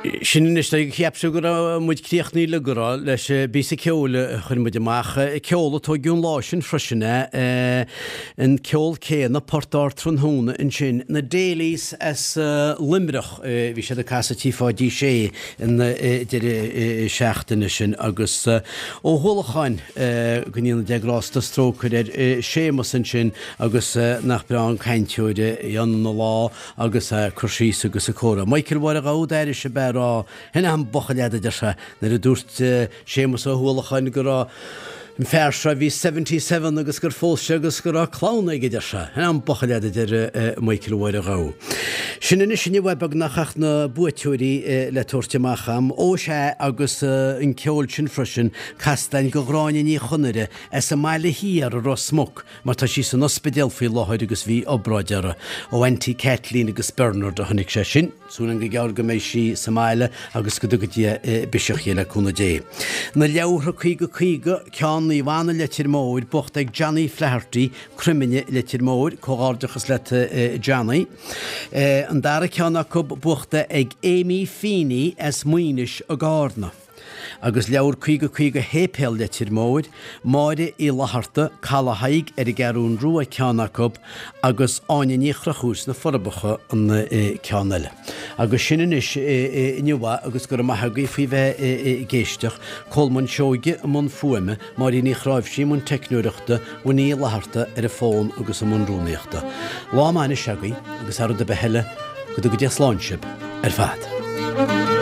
Sin anois, cheap tú go raibh muid críochnaithe le go raibh leis an bpíosa ceoil a chuir muid amach. Ceol a tóigeadh an lá sin freisin, an ceol céanna, Port Ard Tráthnóna ansin. Na Daly's as Luimneach, bhí siad ag casadh Tí Pháidí Sé an deireadh seachtaine sin agus Ó hUallacháin, go ndéana Dia grásta is trócaire air, Séamus ansin agus nach breá an cainteoir é ina lá agus ag cur síos agus ag comhrá. Michael Mháire Ghabha d'airigh sé b'ea rá, Shin é an buachaill fhada, a deir sé, nuair a dúirt Séamus Ó hUallacháin go raibh an fear seo a bhí 77 agus gur phós sé agus go raibh clann aige, a deir sé. Shin é an buachaill fhada, a deir Michael Mháire Ghabha. Sin anois inniu é beagnach ach na buaiteoirí le tabhairt amach a'm. Ó sea agus an ceol sin freisin, casta a'inn go Ghráinne Ní Chonaire as an mBaile Thiar i Ros Muc, mar tá sí san ospidéal faoi láthair agus bhí obráid uirthi. Ó Auntie Kathleen agus Bernard a tháinig sé sin. Súil againn go gearr go mbeidh sí sa mbaile agus go dtuga Dia biseach di le cúnamh Dé. Na leabhartha 50 50, ceann Naomh Anna Leitir Móir, buachta ag Johnny Flaherty, Croimine, Leitir Móir, Comhghairdeachas leat Johnny. An dara ceann acu buachta ag Amy Feeney as Maínis i gCarna. Agus leabhar 50 50 Shéipéal Leitir Móir, Máire Uí Fhlatharta, Caladh Thaidhg ar an gCeathrún Rua ceann acu agus Áine Ní Chonchúir sna Forbacha an ceann eile. Agus sin anois inniu é agus go raibh maith agaibh faoi bheith ag éisteacht. Colmán Seoige i mbun fuaime, Máirín Uí Chráimhsí i mbun teicneoireachta, Winnie Uí Fhlatharta ar an bhfón agus i mbun rúnaíochta. Lá maith anois agaibh agus thar rud ar bith eile, go dtuga Dia slán sibh ar fad.